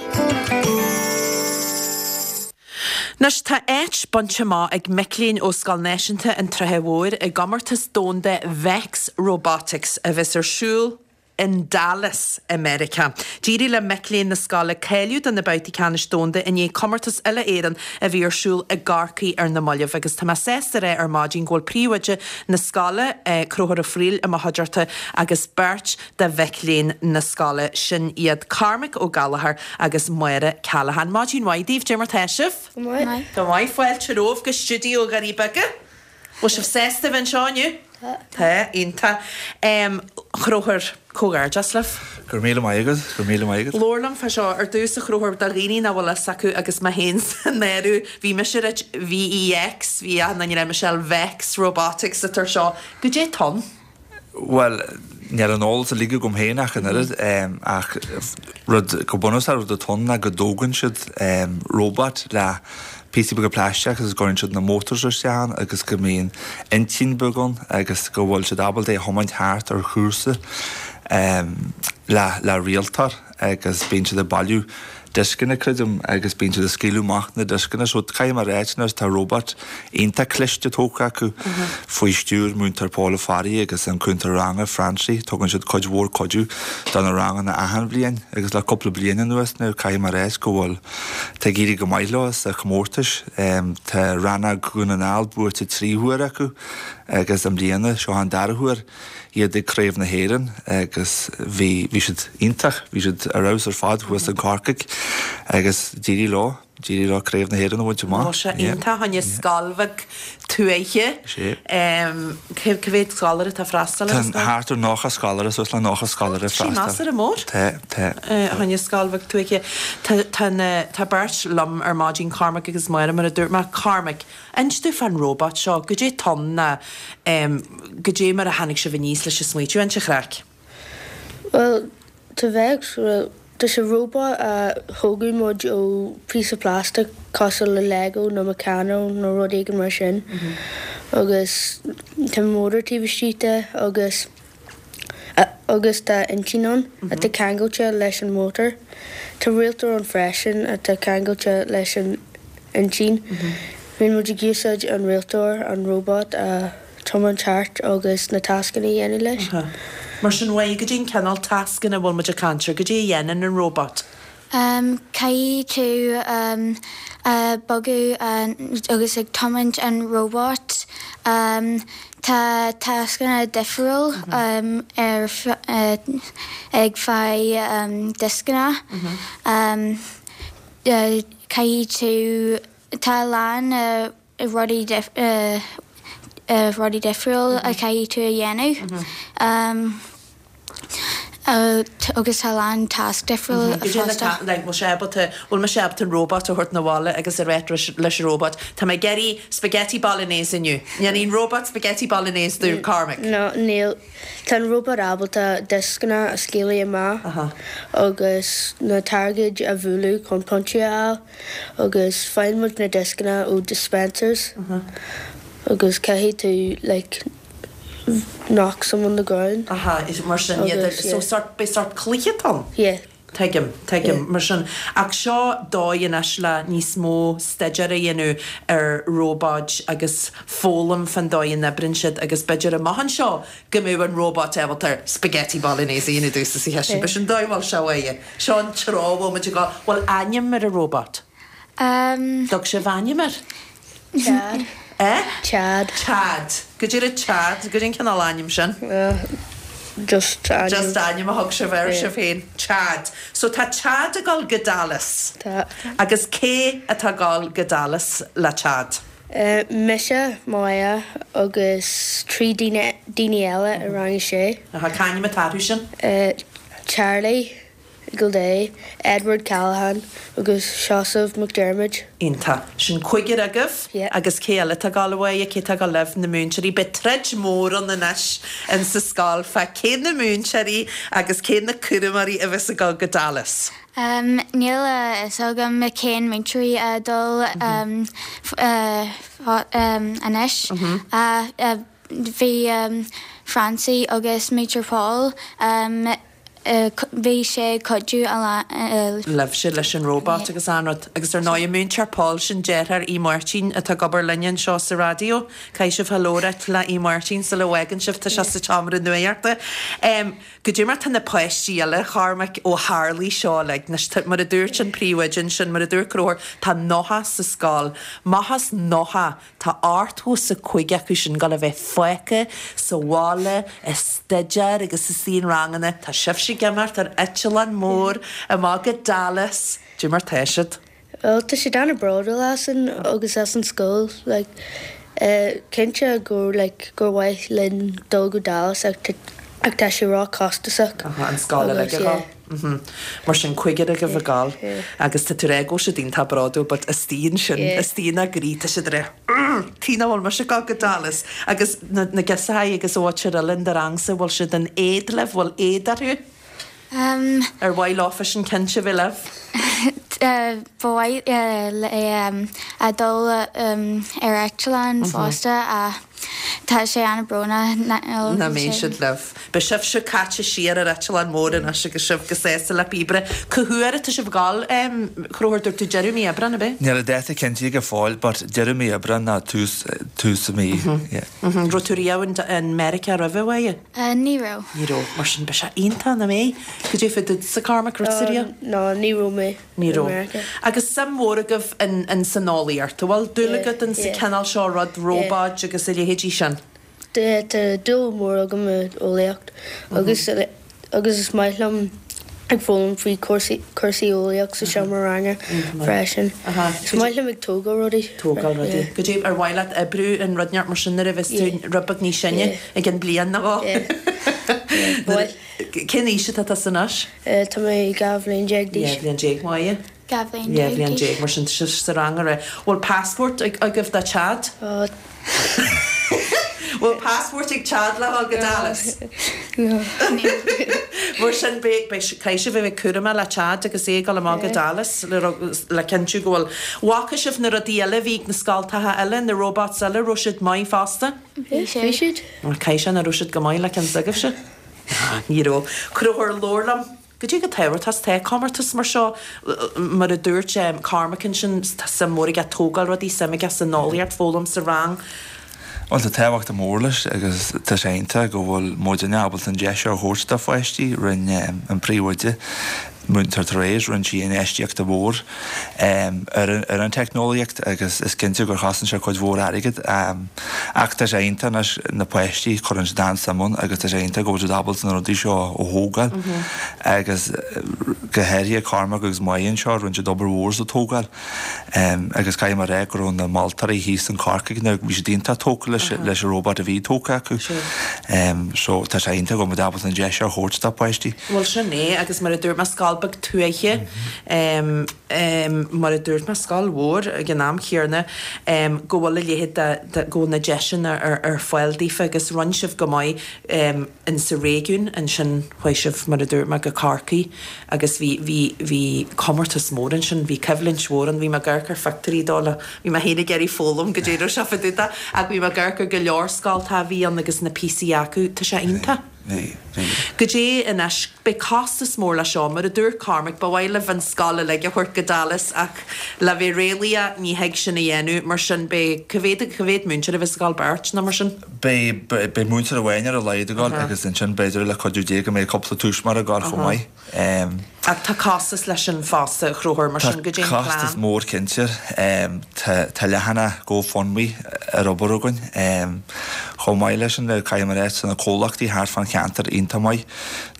Anois tá áit bainte amach ag mic léinn ó Scoil Náisiúnta an tSratha Mhóir i gcomórtas domhanda Vex Robotics a bheas ar siúl. In Dallas i Meiriceá. D'éirigh le mic léinn na scoile cáiliú do na babhtaí ceannais domhanda i ndiaidh comórtas uile-Éireann a bhí ar siúl i gCorcaigh ar na mallaibh agus tá mé sásta a rá ar maidin go bhfuil príomhoide na scoile, Conchúr Ó Frighil, i mo chuideachta agus beirt de mhic léinn na scoile, sin iad Cormac Ó Gallchóir agus Máire Callaghan. Maidin mhaith daoibh, cad é mar tá sibh? Go maith. Go maith. Fáilte romhaibh go stiúideo Dhoirí Beaga. Bhfuil sibh sásta a bheith anseo inniu? Tá. Tá, iontach. Chonchúir, comhghairdeas libh. Go raibh míle maith agat, go raibh míle maith agat. Labhair liom fá seo ar dtús, a Chonchúir, do dhaoine nach bhfuil fhios acu agus mé féin san áireamh, bhí mise ag ráit VEX, bhí achan duine ag rá Michelle Vex Robotics atá ar seo. Goidé atá ann? Bhuel, níl an eolas uilig agam féin ach an oiread, ach rud, go bunúsach, rud atá ann ná go dtógann siad robot le píosaí beaga plaisteach agus go gcuireann siad na motors isteach ann agus go mbíonn intinn beag ann agus go bhfuil siad ábalta é a thiomáint thart ar chúrsa le le rialtóir agus bíonn siad ag bailiú dioscanna, creidim, agus bíonn siad ag scaoileadh amach na dioscanna. So caithfidh mé a ráit anois, tá robot iontach cliste tógtha acu faoi stiúir Múinteoir Paul Ó Fearraigh agus an cúntóir ranga, Francie. Tugann siad cuid mhór cuidiú do na ranganna achan bhliain agus le cúpla bliain anuas now caithfidh mé a ráit go bhfuil, tá ag éirí go maith leo sa chomórtais. Tá rannóg Dhún na nGall buaite 3 huaire acu agus i mbliana, seo an dara huair. iad ag Craobh na hÉireann agus bhí, bhí siad iontach, bhí siad ar fheabhas ar fad thuas in Corcaigh agus d'éirigh leo, d'éirigh leo Craobh na hÉireann a bhaint amach. Bhí sé iontach, fá choinne scoil bheag tuaithe. Sé. Cé mhéad scoláire atá ag freastal ar an scoil? Tá thart ar 90 scoláire, suas le 90 scoláire ag freastal. Sin measartha mór. Tá, tá. Fá choinne scoil bheag tuaithe. Tá, tá na, tá beirt liom ar maidin, Cormac agus Máire, mar a dúirt mé. Cormac, Inis domh fán róbat seo, goidé atá ann ná goidé mar a tháinig sibh aníos leis an smaoitiú, inis an chraic. Bhuel, tá Vex, bhuel, tá sé róbat a thógadh muid ó píosa plastic cosúil le Lego nó Meccano nó rud éigin mar sin agus tá mótar taobh istigh de agus agus tá intinn ann atá ceangailte leis an mótar. Tá rialtóir ann freisin atá ceangailte leis an intinn. Bíonn muid ag úsáid an rialtóir an róbat a thiomáint thart agus na tascanna a dhéanamh leis. Mar sin, uaidh, goidé an cineál tascanna a bhfuil muid ag caint air, goidé a dhéanann an róbat? Caithfidh tú bogadh agus ag tiomáint an róbat. Tá tascanna difriúil ar ag fáil dioscanna. Caithfidh tú tá a lán rudaí rudaí difriúil a chaithfidh tú a dhéanamh agus tá a lán tasc difriúil fosta. Like, bhfuil sé ábalta, bhfuil mise ábalta an robot a thabhairt 'na bhaile agus a rá leis an robot, tá mé ag iarraidh spaghetti bolognese inniu. Ndéanfaidh an robot spaghetti bolognese domh, Cormac? No, níl. Tá an róbat ábalta dioscanna a scaoileadh amach agus na targaid a bhualadh chun pointí a fháil. Agus faigheann muid na dioscanna ó dispensers agus caithfidh tú like knock some on the ground. Aha, is mar sin iad Agus so yeah. sort beidh sort cluiche atá ann? Yeah. Tuigim, tuigim, mar sin. Ach seo dóigh anois le níos mó staidéir a dhéanamh ar róbáid agus foghlaim fán dóigh a n-oibríonn siad agus b'fhéidir amach anseo go mbeadh an róbat ábalta spaghetti bolognese a dhéanamh domhsa sa chistin. B'shin an dóigh a bhfuil sé uaidh. Seo an treo a bhfuil muid ag dul. Bhfuil ainm ar an róbat? Dtug sibh ainm air? Chad. Eh? Chad. Chad. Goidé raibh Chad? Goidé an cineál ainm sin? Just ainm. Just ainm a thug sibh air sibh féin. Chad. So tá Chad ag dul go Dallas. Tá. Agus cé atá ag dul go Dallas le Chad? Mise, Máire agus 3 daoine daoine eile i rang a sé. Aha, cá ainm atá orthu sin? Charlie Gildea, Edward Callaghan agus Seosamh McDermott. Iontach. Sin cúigear agaibh? Yeah. Agus cé eile atá ag dul uaidh? Cé atá ag dul libh? Na múinteoirí. Beidh troid mór ann anois in sa scoil fá cé na múinteoirí agus cé na cúramóirí a bheas ag dul go Dallas. Níl a fhios agam cén múinteoirí a dul anois. Bhí Francie agus Múinteoir Paul. Bhí sé ag cuidiú a lán. Libhse leis an robot agus an rud. Agus ar ndóigh, Múinteoir Paul, sin deartháir Aodh Máirtín atá ag obair linne anseo sa raidió. Caithfidh sibh hello a ráit le Aodh Máirtín sula bhfágann sibh, tá sé sa tseomra nuachta. Goidé mar tá na páistí eile, a Chormaic, ó tharlaigh seo uilig. Anois, tá, mar a dúirt an príomhoide ansin, mar a dúirt Conchúr, tá 90 sa scoil. Amach as 90, Tá 85 acu sin ag gabháil a bheith fágtha sa bhaile ag staidéar agus istigh in ranganna. Tá sibhse ag imeacht ar eitleán mór amach go Dallas. Goidé mar tá siad? Bhuel, tá siad an-bhródúil asainn agus as an scoil. Like, cinnte gur, like, gur mhaith linn dul go Dallas ach ach tá sé ró-chostasach. Aha, an scoil uilig a dhul. Mar sin, cúigear agaibh ag gabháil agus tá tú ag rá go bhfuil siad iontach bródúil but istigh ansin, istigh ina gcroí, tá siad ag rá tuige nach bhfuil mise ag gabháil go Dallas agus na na girseachaí agus an mhuintir eile in do rangsa, bhfuil siad in éad libh, bhfuil éad orthu? Ar mhaith leofa sin cinnte bheith libh? Ba mhaith leo a dul ar eitleán fosta ach tá sé an-bhrónach nach mbeidh siad libh. Beidh sibhse caite siar ar eitleán mór anois agus sibh go sásta le píobaire. Cá huair atá sibh ag gabháil, a Chonchúir, dúirt tú deireadh mí Aibreán, ab é? Níl an dáta cinnte go fóill but deireadh mí Aibreán nó tús tús mí, yeah. Raibh tú riamh in Meiriceá roimhe, a Mháire? Ní raibh. Ní raibh. Mar sin beidh sé iontach, nach mbeidh? Goidé fá duitse, Cormac, raibh tusa riamh? No, ní raibh mé Ní raibh. Agus suim mhór agaibh in san eolaíocht, an bhfuil dúil agat in sa cineál seo rud, róbáid agus a leithéidí sin? Tá dúil mhór agam i eolaíocht agus agus is maith liom ag foghlaim faoi cúrsaí cúrsaí eolaíocht sa seomra ranga freisin. Is maith liom ag tógáil rudaí. Tógáil rudaí. Goidé ar mhaith leat oibriú in rud inteacht mar sin nuair a bheas tú rud beag níos sine i gcionn bliain nó dhó? Cén aois atá tusa anois? Tá mé 12 bhliain d'aois. 12 bhliain, Máire? 12 bhliain 12 bhliain déag, mar sin tá sibh sa rang ar Bhfuil passport agaibh do Chad? Bhfuil passport ag Chad le dhul go Dallas? No. Mar sin beidh, beidh, caithfidh sibh a bheith cúramach le Chad agus é ag dul amach go Dallas le, le cinntiú go bhfuil, bhfaca sibh na rudaí eile a bhí ag na scoltacha eile, na robots eile, raibh siad maith fosta? Bhí siad. Caithfidh sé nach raibh siad go maith le ceann s'agaibhse? Ní raibh. Conchúr, labhair liom. Goidé chomh tábhachtach is atá comórtas mar seo, mar a dúirt Cormac ansin, tá suim mhór aige tógáil rudaí, suim aige san eolaíocht, foghlaim sa rang. Bhuel, tá tábhacht mór leis agus tá sé iontach go bhfuil muidinne ábalta an deis seo a thabhairt do pháistí. Rinne an príomhoide, Múinteoir Therese, rinne sí infheistíocht mhór ar an teicneolaíocht agus is cinnte gur chosain sé cuid mhór airgid. Ach tá sé iontach anois, na páistí, cuireann siad an-suim ann agus tá sé iontach go bhfuil siad ábalta na rudaí seo a thógáil agus go háirithe Cormac agus Máire anseo, rinne siad obair mhór sa tógáil agus caithfidh mé a rá go raibh na moltóirí thíos in Corcaigh, bhí siad iontach tógtha leis leis an robot a bhí tógtha acu. So tá sé iontach go bhfuil muid ábalta an deis seo a thabhairt do pháistí. Bhuel sin é agus mar a dúirt mé scoil beag tuaithe, mar a dúirt mé, scoil mhór ag an am chéanna, go bhfuil a leithéid de, go bhfuil na deiseanna ar fáil daofa agus rinne sibh go maith in sa réigiún ansin, chuaigh sibh, mar a dúirt mé, go Corcaigh agus bhí, bhí, bhí comórtas mór ansin, bhí coimhlint mhór ann, bhí mé ag amharc ar phictiúirí dó le, bhí mé féin ag iarraidh foghlaim goidé a raibh sé fá dtaobh de ach bhí mé ag amharc ar go leor scoltacha a bhí ann agus na píosaí acu, tá sé iontach. Bhí, bhí. Goidé anois, beidh costas mór leis seo, mar a dúirt Cormac, ba mhaith libh an scoil uilig a thabhairt go Dallas ach le bheith réalaíoch ní thig sin a dhéanamh, mar sin beidh, cá mhéad, cá mhéad múinteoir a bheas ag dul, beirt nó mar sin? Beidh, beidh múinteoir amháin ar a laghad ag dul agus ansin b'fhéidir le cuidiú Dé go mbeidh cúpla tuismitheoir ag dul chomh maith. Ach tá costas leis sin fosta, a Chonchúir, mar sin goidé an plean? Tá costas mór cinnte. Tá leathanach GoFundMe ar obair againn. Chomh maith leis sin, caithfidh mé a rá, tá na comhlachtaí thart fán cheantar iontach maith.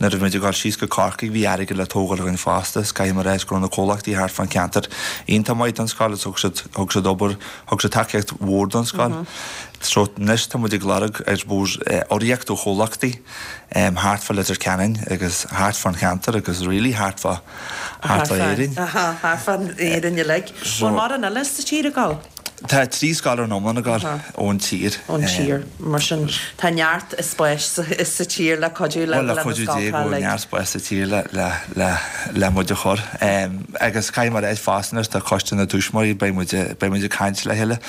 Nuair a bhí muid ag dul síos go Corcaigh bhí airgead le tógáil againn fosta is caithfidh mé a rá go raibh na comhlachtaí thart fán cheantar iontach maith don scoil agus thug siad, thug siad obair, thug siad tacaíocht mhór don scoil. So anois tá muid ag lorg, I suppose, urraíocht ó chomhlachtaí. thart fá Leitir Ceanainn agus thart fán cheantar agus really thart fá, thart fá Éirinn. Thart fá Éirinn uilig. Bhfuil mórán eile sa tír ag dul? Tá 3 scoil ar an iomlán ag dul ón tír. Ón tír. Mar sin tá neart spáis sa tír le cuidiú le na scoltacha uilig. Bhuel, le cuidiú Dé go bhfuil neart spáis sa tír le, le, le, le muid a chur. Agus caithfidh mé a rá fosta anois tá coiste na dtuismitheoirí, beidh muid, beidh muid ag caint le chéile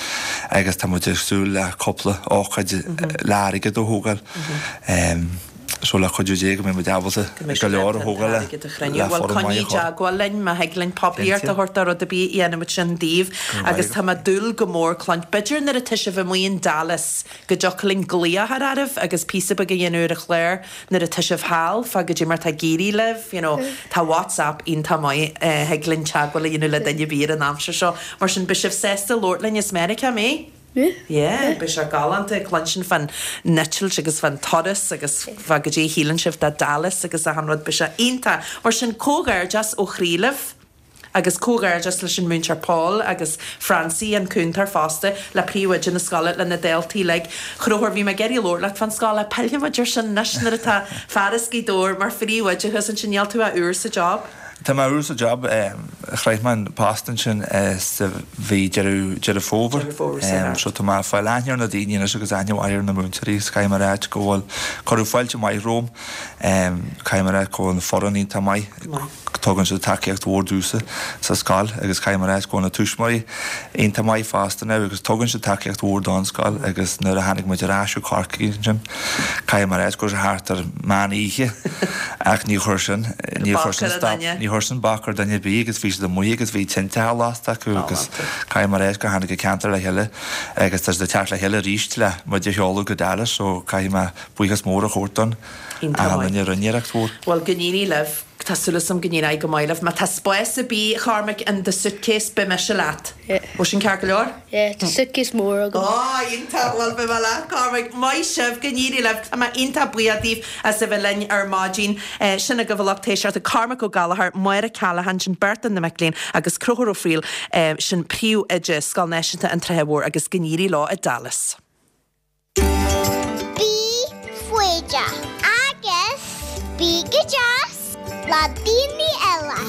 agus tá muid ag súil le cúpla ócáid le airgead a thógáil. So le cuidiú Dé go mbeidh muid ábalta go leor a thógáil le Bhuel foireann coinnigh maith a i chur. dteagmháil linn má thig linn poiblíocht a thabhairt do rud ar bith dhéanfaidh muid sin daoibh agus tá mé ag dúil go mór cluint b'fhéidir nuair atá sibh amuigh in Dallas go dtiocfadh linn glaoch a chur oraibh agus píosa beag a dhéanamh ar an chlár nuair atá sibh thall fá goidé mar atá ag éirí libh you know tá WhatsApp iontach maith thig linn teagmháil a dhéanamh le duine ar bith ar an aimsir seo mar sin beidh sibh sásta labhairt linn as Meiriceá an mbeidh? Yeah, beidh sé galánta cluinstin fán eitilt agus fán turas agus fá goidé a shíleann sibh de Dallas agus achan rud, beidh sé iontach. Mar sin, comhghairdeas ó chroí libh agus comhghairdeas leis an Múinteoir Paul agus Francie, an cúntóir fosta, le príomhoide na scoile, le na daltaí uilig. Chonchúir, bhí mé ag iarraidh labhairt leat fán scoil ach pillfidh muid ar sin anois nuair atá fear as Gaoth Dobhair mar phríomhoide thuas ansin, níl tú ach úr sa job? Tá mé úr sa job. Shroich mé an post ansin sa mhí Deireadh Deireadh Fómhair. Deireadh Fómhair, sea. So tá mé ag fáil aithne ar na daoine anois agus aithne mhaith ar na múinteoirí agus caithfidh mé a ráit go bhfuil cuireadh fáilte maith romham. Caithfidh mé a ráit go bhfuil an foireann iontach maith. Tugann siad tacaíocht mhór domhsa sa scoil agus caithfidh mé a ráit go bhfuil na tuismitheoirí iontach maith fosta now agus tugann siad tacaíocht mhór don scoil agus nuair a tháinig muid ar ais ó Chorcaigh ansin Caithfidh mé a ráit go raibh sé thart ar meán oíche ach ní chuir sin, ní chuir sin stop, ní chuir sin bac ar duine ar bith agus bhí siad amuigh agus bhí tinte á lasta acu agus caithfidh mé a ráit gur tháinig an ceantar le chéile agus tá siad ag teacht le chéile arís le muid a sheoladh go Dallas so caithfidh mé buíochas mór a thabhairt don achan duine a rinne iarracht mhór. Bhuel, go n-éirí libh. Tá súil agam go n-éireoidh go maith libh. Má tá spás ar bith, a Chormaic, in do suitcase, beidh mise leat. Bhfuil sin ceart go leor? Yeah, tá suitcase mór agam. Ó, iontach! Bhuel, beidh mé leat, Cormac. Maith sibh, go n-éirí libh. Tá mé iontach buíoch daoibh as a bheith linn ar maidin. Sin agaibh a lucht éisteachta, Cormac Ó Gallchóir, Máire Callaghan, sin beirt de na mic léinn, agus Conchúr Ó Frighil, sin príomhoide Scoil Náisiúnta an tSratha Mhóir, agus go n-éirí leo i Dallas. Bí foighdeach agus bí go deas le daoine eile.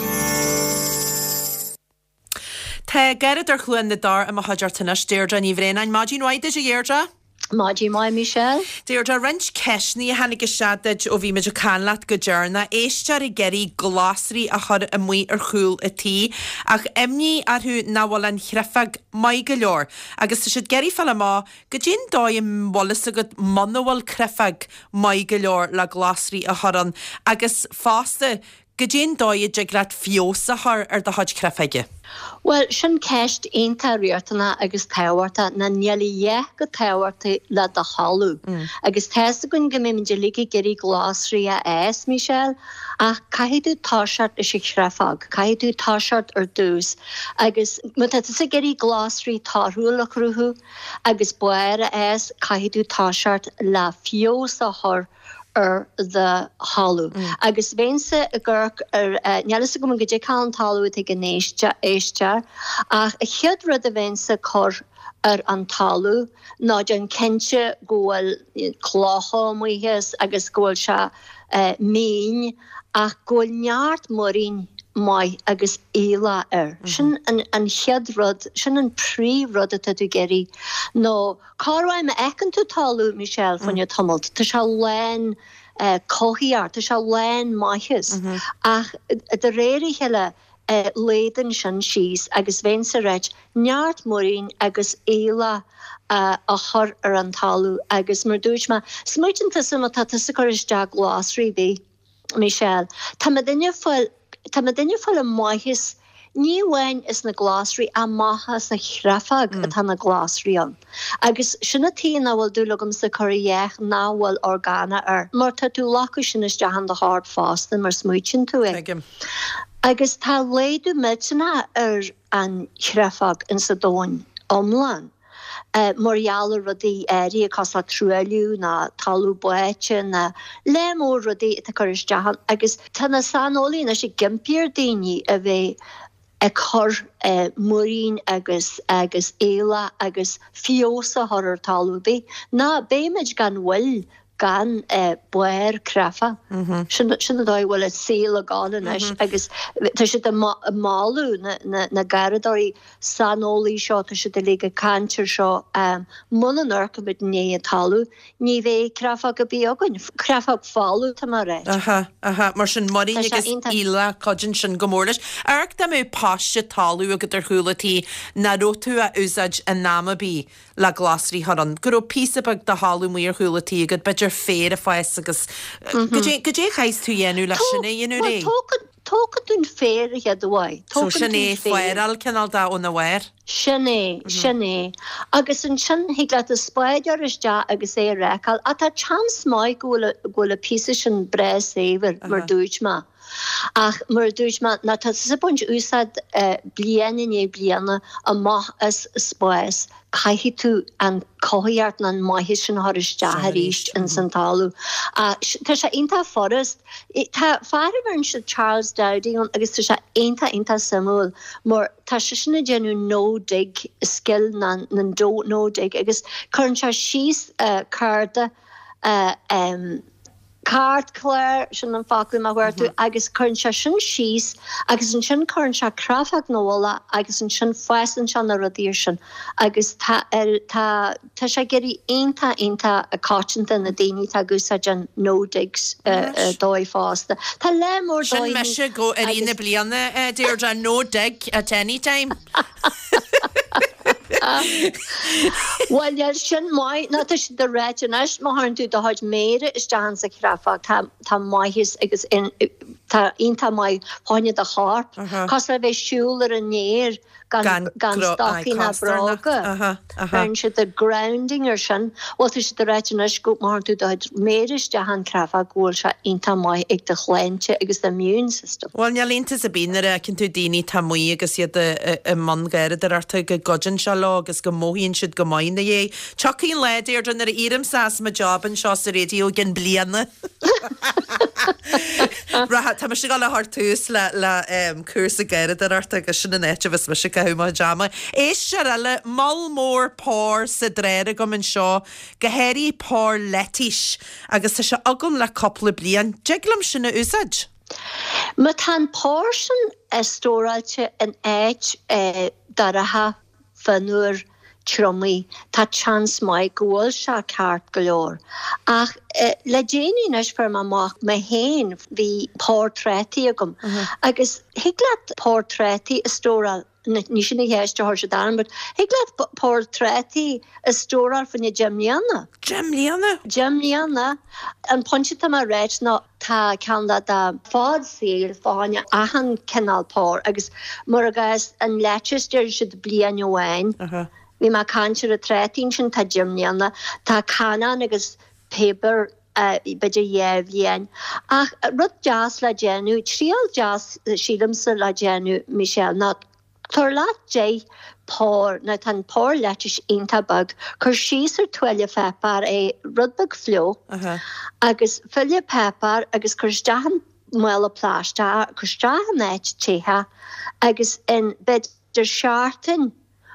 Tá Garradóir Chluain na dTor i mo chuideachta anois, Deirdre Ní Bhraonáin. Maidin mhaith duit, a Dheirdre. Maidin mhaith, Michelle. Deirdre, roinnt ceisteanna a tháinig isteach duit ó bhí muid ag caint leat go deireanach. Éisteoir ag iarraidh glasraí a chur amuigh ar chúl a tí, ach imní orthu nach bhfuil an chreifeog maith go leor agus tá siad ag iarraidh fáil amach Goidé'n dóigh a bhfuil fhios agat muna bhfuil creifeog maith go leor le glasraí a chur ann agus fosta goidé'n dóigh a dtig leat feabhas a chur ar do chuid creifeoige? Bhuel, sin ceist iontach riachtanach agus tábhachtach ná níl a dhath chomh tábhachtach le do thalamh. Agus tá's againn go mbeimid uilig ag iarraidh glasraí a fhás, Michelle, ach caithfidh tú toiseacht leis an chreifeog, caithfidh tú toiseacht ar dtús. Agus má tá tusa ag iarraidh glasraí torthúil a chruthú, Agus barr a fhás, caithfidh tú toiseacht le feabhas a chur ar do thalamh. Agus bheinnse ag amharc ar, níl fhios agam goidé cineál an talamh atá ag an éisteoir, ach an chéad rud a bheinnse ag cur ar an talamh ná déan cinnte go bhfuil clocha amuigh as agus go bhfuil sé mín ach go bhfuil neart muirín maith agus aoileach air. Sin an chéad rud, sin an príomh rud atá tú ag iarraidh. Nó corruair má fheiceann tú talamh, Michelle, fá choinne tamalt, tá sé lán cothaíocht, tá sé lán maitheas. Ach de réir a chéile laghdaíonn sin síos agus bheinnse ag ráit neart muirín agus aoileach a chur ar an talamh agus mar dúirt mé, smaoitíonn tusa má tá tusa ag cur isteach glasraí ar bith, Michelle, tá muidinne ag fáil, tá muidinne ag fáil an maitheas, ní amháin as na glasraí ach maitheas sa chreifeog atá na glasraí ann. Agus sin an tuige nach bhfuil dúil agamsa cur a dhath nach bhfuil orgánach air, mar tá tú ag glacadh sin isteach in do chorp fosta mar smaoitíonn tú é. Tuigim. Agus tá laghdú millteanach ar an chreifeog insa domhan iomlán mar gheall ar rudaí áirithe cosúil le truailliú ná talamh báite ná lear mór rudaí atá ag cur isteach ann agus tá na saineolaithe anois ag impí ar daoine a bheith ag cur muirín agus agus aoileach agus feabhas a chur ar talamh ar bith. Ná beimid gan mhoill gan barr creife. Sin sin an dóigh a bhfuil an saol ag gabháil anois agus tá siad ag moladh na na garradóirí saineolaí seo, tá siad uilig ag caint ar seo, muna n-amharcaimid i ndiaidh an talamh, ní bheidh creafóg ar bith againn, creafóg folamh tá mé a ráit. Aha, aha, mar sin muirín Tá sé agus iontach. aoileach, cuidíonn sin go mór leis. Amharc dá mbeadh paiste talaimh agat ar chúl an tí, nach raibh tú á úsáid in am ar bith. Le glasraí a chur ann, go raibh píosa beag de thalamh amuigh ar chúl an tí agat, b'fhéidir féar ag fás agus goidé goidé a chaithfeas tú a dhéanamh le sin a dhéanamh réidh? Bhuel, tógann tú an féar a chéad uair. So sin é, féaráil cineál de óna bharr? Sin é, sin é. Agus ansin thig leat an spád a chur isteach agus é a rácáil. Ach tá chance maith go bhfuil go bhfuil an píosa sin breá saibhir, mar dúirt mé. Ach mar a dúirt mé, má tá tusa ag baint úsáid bliain i ndiaidh bliana amach as spás, caithfidh tú an cothaíocht nó an maitheas sin a chur isteach arís ins an talamh. Tá sé iontach furast. Tá fear a bheireann siad Charles Dowding ann agus tá sé iontach iontach suimiúil mar tá seisean ag déanamh no dig scil na no dig agus cuireann sé síos cárta Cairtchlár, sin an focal a chuartú, agus cuireann sé sin síos agus ansin cuireann sé créafóg ina mhullach agus ansin fásann sé na rudaí ar sin agus tá tá tá sé ag éirí iontach iontach coitianta na daoine atá ag úsáid an no dig dóigh fosta. Tá lear mór Sin dóigheanna mise go i rith na bliana, a Deirdre, no dig at any time. Bhuel, níl sin maith, nó tá siad ag ráit anois, má chuireann tú do chuid méire isteach insa chreafóg, tá, tá maitheas agus tá iontach maith fá choinne do chorp. Cosúil le bheith ag siúl ar an aer gan, gan stocaí ná bróga. Bheireann siad the grounding ar sin. Bhuel, tá siad ag ráit anois go má chuireann tú do chuid méire isteach an chreafóg go bhfuil sé iontach maith ag do shláinte agus do immune system. Bhuel, níl iontas ar bith nuair a fheiceann tú daoine atá amuigh agus iad i mbun garraíodóireachta go gcuidíonn sé leo agus go mothaíonn siad go maith ina dhiaidh. Tiocfaidh an lá, Deirdre, nuair a éireomsa as mo job anseo sa raidió i gcionn bliana. Rachaidh, tá mise ag dul a chur tús le le cúrsa garraíodóireachta agus sin an áit a bheas mise ag caitheamh mo chuid ama. Éisteoir eile, moll mór pár sa dráir agam anseo, go háirithe pár leitís, agus tá sé agam le cúpla bliain. Dtig liom sin a úsáid? Má tá an pár sin stóráilte in áit dorcha, fionnuar, triomaithe, tá seans maith go bhfuil sé ceart go leor. Ach le déanaí anois fuair mé amach mé féin, bhí pár trátaí agam agus thig leat pár trátaí a stóráil, ní sin an cheist a chuir siad orm, but thig leat pár trátaí a stóráil fá choinne 10 mbliana. 10 mbliana? 10 mbliana. An pointe atá mé a ráit ná tá ceann de fad saoil fá choinne achan cineál pár agus mar i gcás an lettuce deir siad bliain amháin. Bhí mé ag caint ar an trátaí ansin tá 10 mbliana. Tá cannáin agus piobar b'fhéidir dhá bhliain. Ach rud deas le déanamh, triail deas sílimse le déanamh Michelle ná tabhair leat 10 pár, now tá an pár lettuce iontach beag, cuir síos ar tuáille pháipéir é, rud beag fliuch, agus tuáille páipéir agus cuir isteach in mála plaisteach, cuir isteach in áit te agus in b'fhéidir seachtain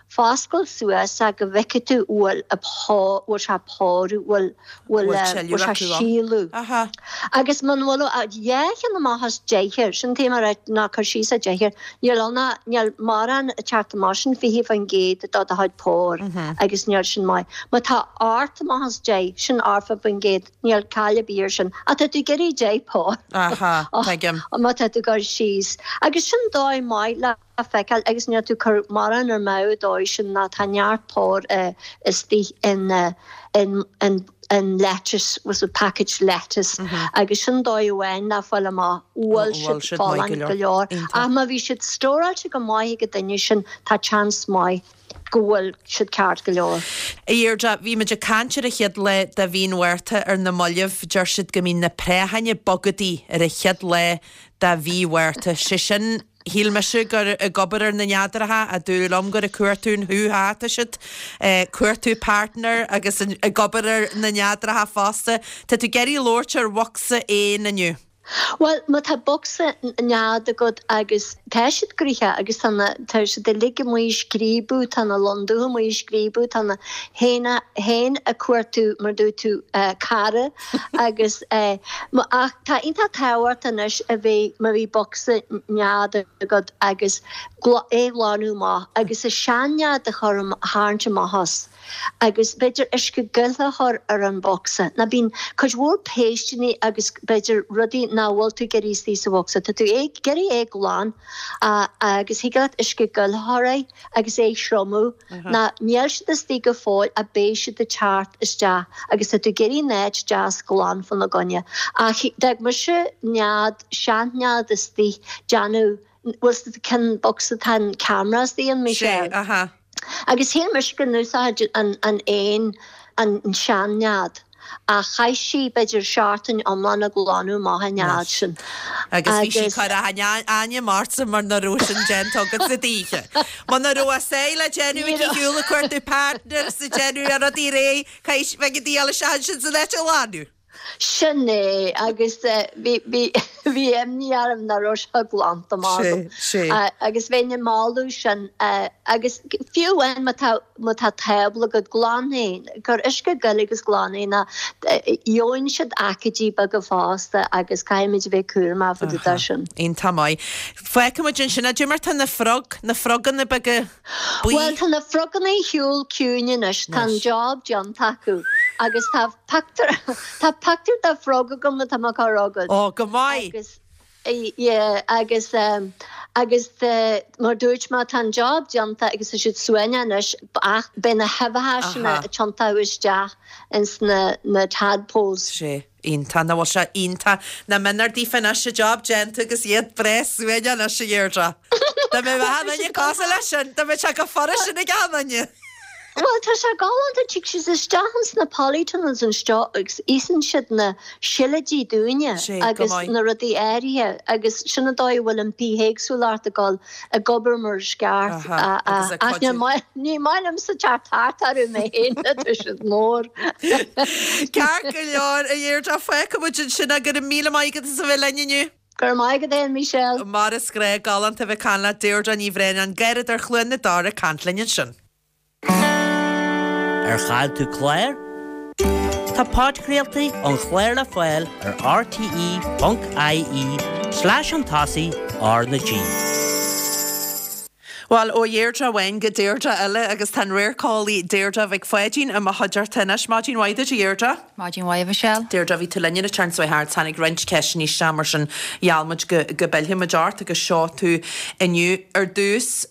Foscail suas é go bhfeicfidh tú bhfuil a bhfuil sé ag pórú, bhfuil bhfuil bhfuil sé ag sileadh. Agus muna bhfuil dhá cheann amach as deichniúr, sin taobh mar ná cur síos ar deichniúr, níl ann ach níl mórán ag teacht amach, sin 20% de do chuid póir agus níl sin maith. Má tá 8 amach as 10, sin 80%, níl caill ar bith ar sin. Ach tá tú ag iarraidh 10 pór. Aha, tuigim. Má tá tú ag cur síos. Agus sin dóigh maith le. a feiceáil agus níl tú ag cur mórán ar mball dóibh sin ná tá neart pór istigh in in in in lettuce was a package lettuce agus sin dóigh amháin le fáil amach bhfuil siad folláin go leor ach má bhí siad stóráilte go maith ag an duine sin tá chance maith go bhfuil siad ceart go leor. A Dheirdre, bhí muid ag caint ar an chéad lá de mhí an Mhárta ar na mallaibh. Deir siad go mbíonn na préacháin ag bogadaí ar an chéad lá de mhí Mhárta. Sé sin, Shíl mise gur ag obair ar na neadracha ach dúradh liom gur ag cuartú an hú-há atá siad, cuartú partner agus ag obair ar na neadracha fosta. Tá tú ag iarraidh labhairt ar bhocsa éan inniu. Bhuel, má tá bocsa nead agat agus tá siad gnoitheach agus tá na, tá siad uilig amuigh ag scríobadh, tá na lon dubha amuigh ag scríobadh, tá na héin, héin ag cuartú mar dúirt tú, cara. Agus ach tá iontach tábhachtach anois a bheith má bhí bocsa nead agat agus é a ghlanadh amach agus an sean-nead a chur a tharraingt amach as agus b'fhéidir uisce gile a chur ar an bhocsa. Nó bíonn cuid mhór péisteanna agus b'fhéidir rudaí. nach bhfuil tú ag iarraidh istigh sa bhocsa. Tá tú ag iarraidh é glan agus thig leat uisce gil a chur air agus é a thriomú ná níl siad istigh go fóill ach beidh siad ag teacht isteach agus tá tú ag iarraidh an áit deas glan fána gcoinne. Ach d'fhág mise nead, sean-nead istigh, déanamh, bhfuil 's agat cén bocsa tá an camera istigh ann, Michelle? Sé, aha. Agus shíl mise go n-úsáid an éan an sean-nead, ach chaith sí b'fhéidir seachtain iomlán ag glanadh amach an nead sin. Agus bhí sí ag cur ainm ortsa mar nach raibh sin déanta agat sa d'oíche. Muna raibh a sáith le déanamh aici shiúl ag cuartú partner sa déanamh ar rudaí réidh, caithfidh bheidh an diabhal isteach ansin san áit a ghlanadh. Sin é, agus bhí, bhí, bhí imní orm nach raibh sé glanta amach agam. Sé, sé. Agus bheinn ag moladh sin, agus fiú amháin má tá, má tá tábla agat, glan é, cuir uisce gil agus glan é, nó gheobhann siad aicídí beaga fosta agus caithfimid a bheith cúramach fá dtaobh de sin. Iontach maith. Fágfaimid ansin é. Cad é mar tá na frog, na froganna beaga buí? Bhuel, tá na froganna ar shiúl ciúin anois, tá an job déanta acu agus tá pictiúr, tá pictiúr de frog agam atá mé ag cur chugat. Ó, go maith! Agus, yeah, agus, agus mar dúirt mé, tá an job déanta agus tá siad suaimhneach anois ach beidh na huibheacha sin ag tiontú isteach ins na, na tadpoles. Sé. Iontach, nach bhfuil sé iontach. Nach méanar daofa anois, an job déanta agus iad breá suaimhneach anois, a Dheirdre. Dá mbeadh achan duine cosúil leis sin, dá mbeadh sé chomh furast sin ag achan duine. Bhuel, tá sé galánta, tig siad isteach ins na polytunnels anseo agus íosann siad na seilidí dúinne Sé, go agus maith. na rudaí áirithe agus sin an dóigh a bhfuil an bithéagsúlacht ag dul ag obair mar is ceart. Aha, agus ag Ach cuidiú. ní maith liomsa teacht thart orthu mé féin, tá siad mór. Ceart go leor, a Dheirdre, fágfaidh muid ansin é. Go raibh míle maith agat as a bheith linn inniu. Go raibh maith agat fhéin, Michelle. Mar is gnách, galánta a bheith ag caint leat, Deirdre Ní Bhraonáin, Garradóir Chluain na Dara ag caint linn ansin. Ar chaill tú clár? Tá podchraoltaí an chláir le fáil ar rte.ie slash chun tosaigh R na G. Bhuel, ó Dheirdre amháin go Deirdre eile agus tá an radharceolaí Deirdre Mhic Pháidín i mo chuideachta anois. Maidin mhaith duit, a Dheirdre. Maidin mhaith, a Mhichelle. Deirdre, bhí tú linn an tseachtain seo thart, tháinig roinnt ceisteanna isteach mar sin gheall muid go go bpillfidh muid ort agus seo tú inniu. Ar dtús,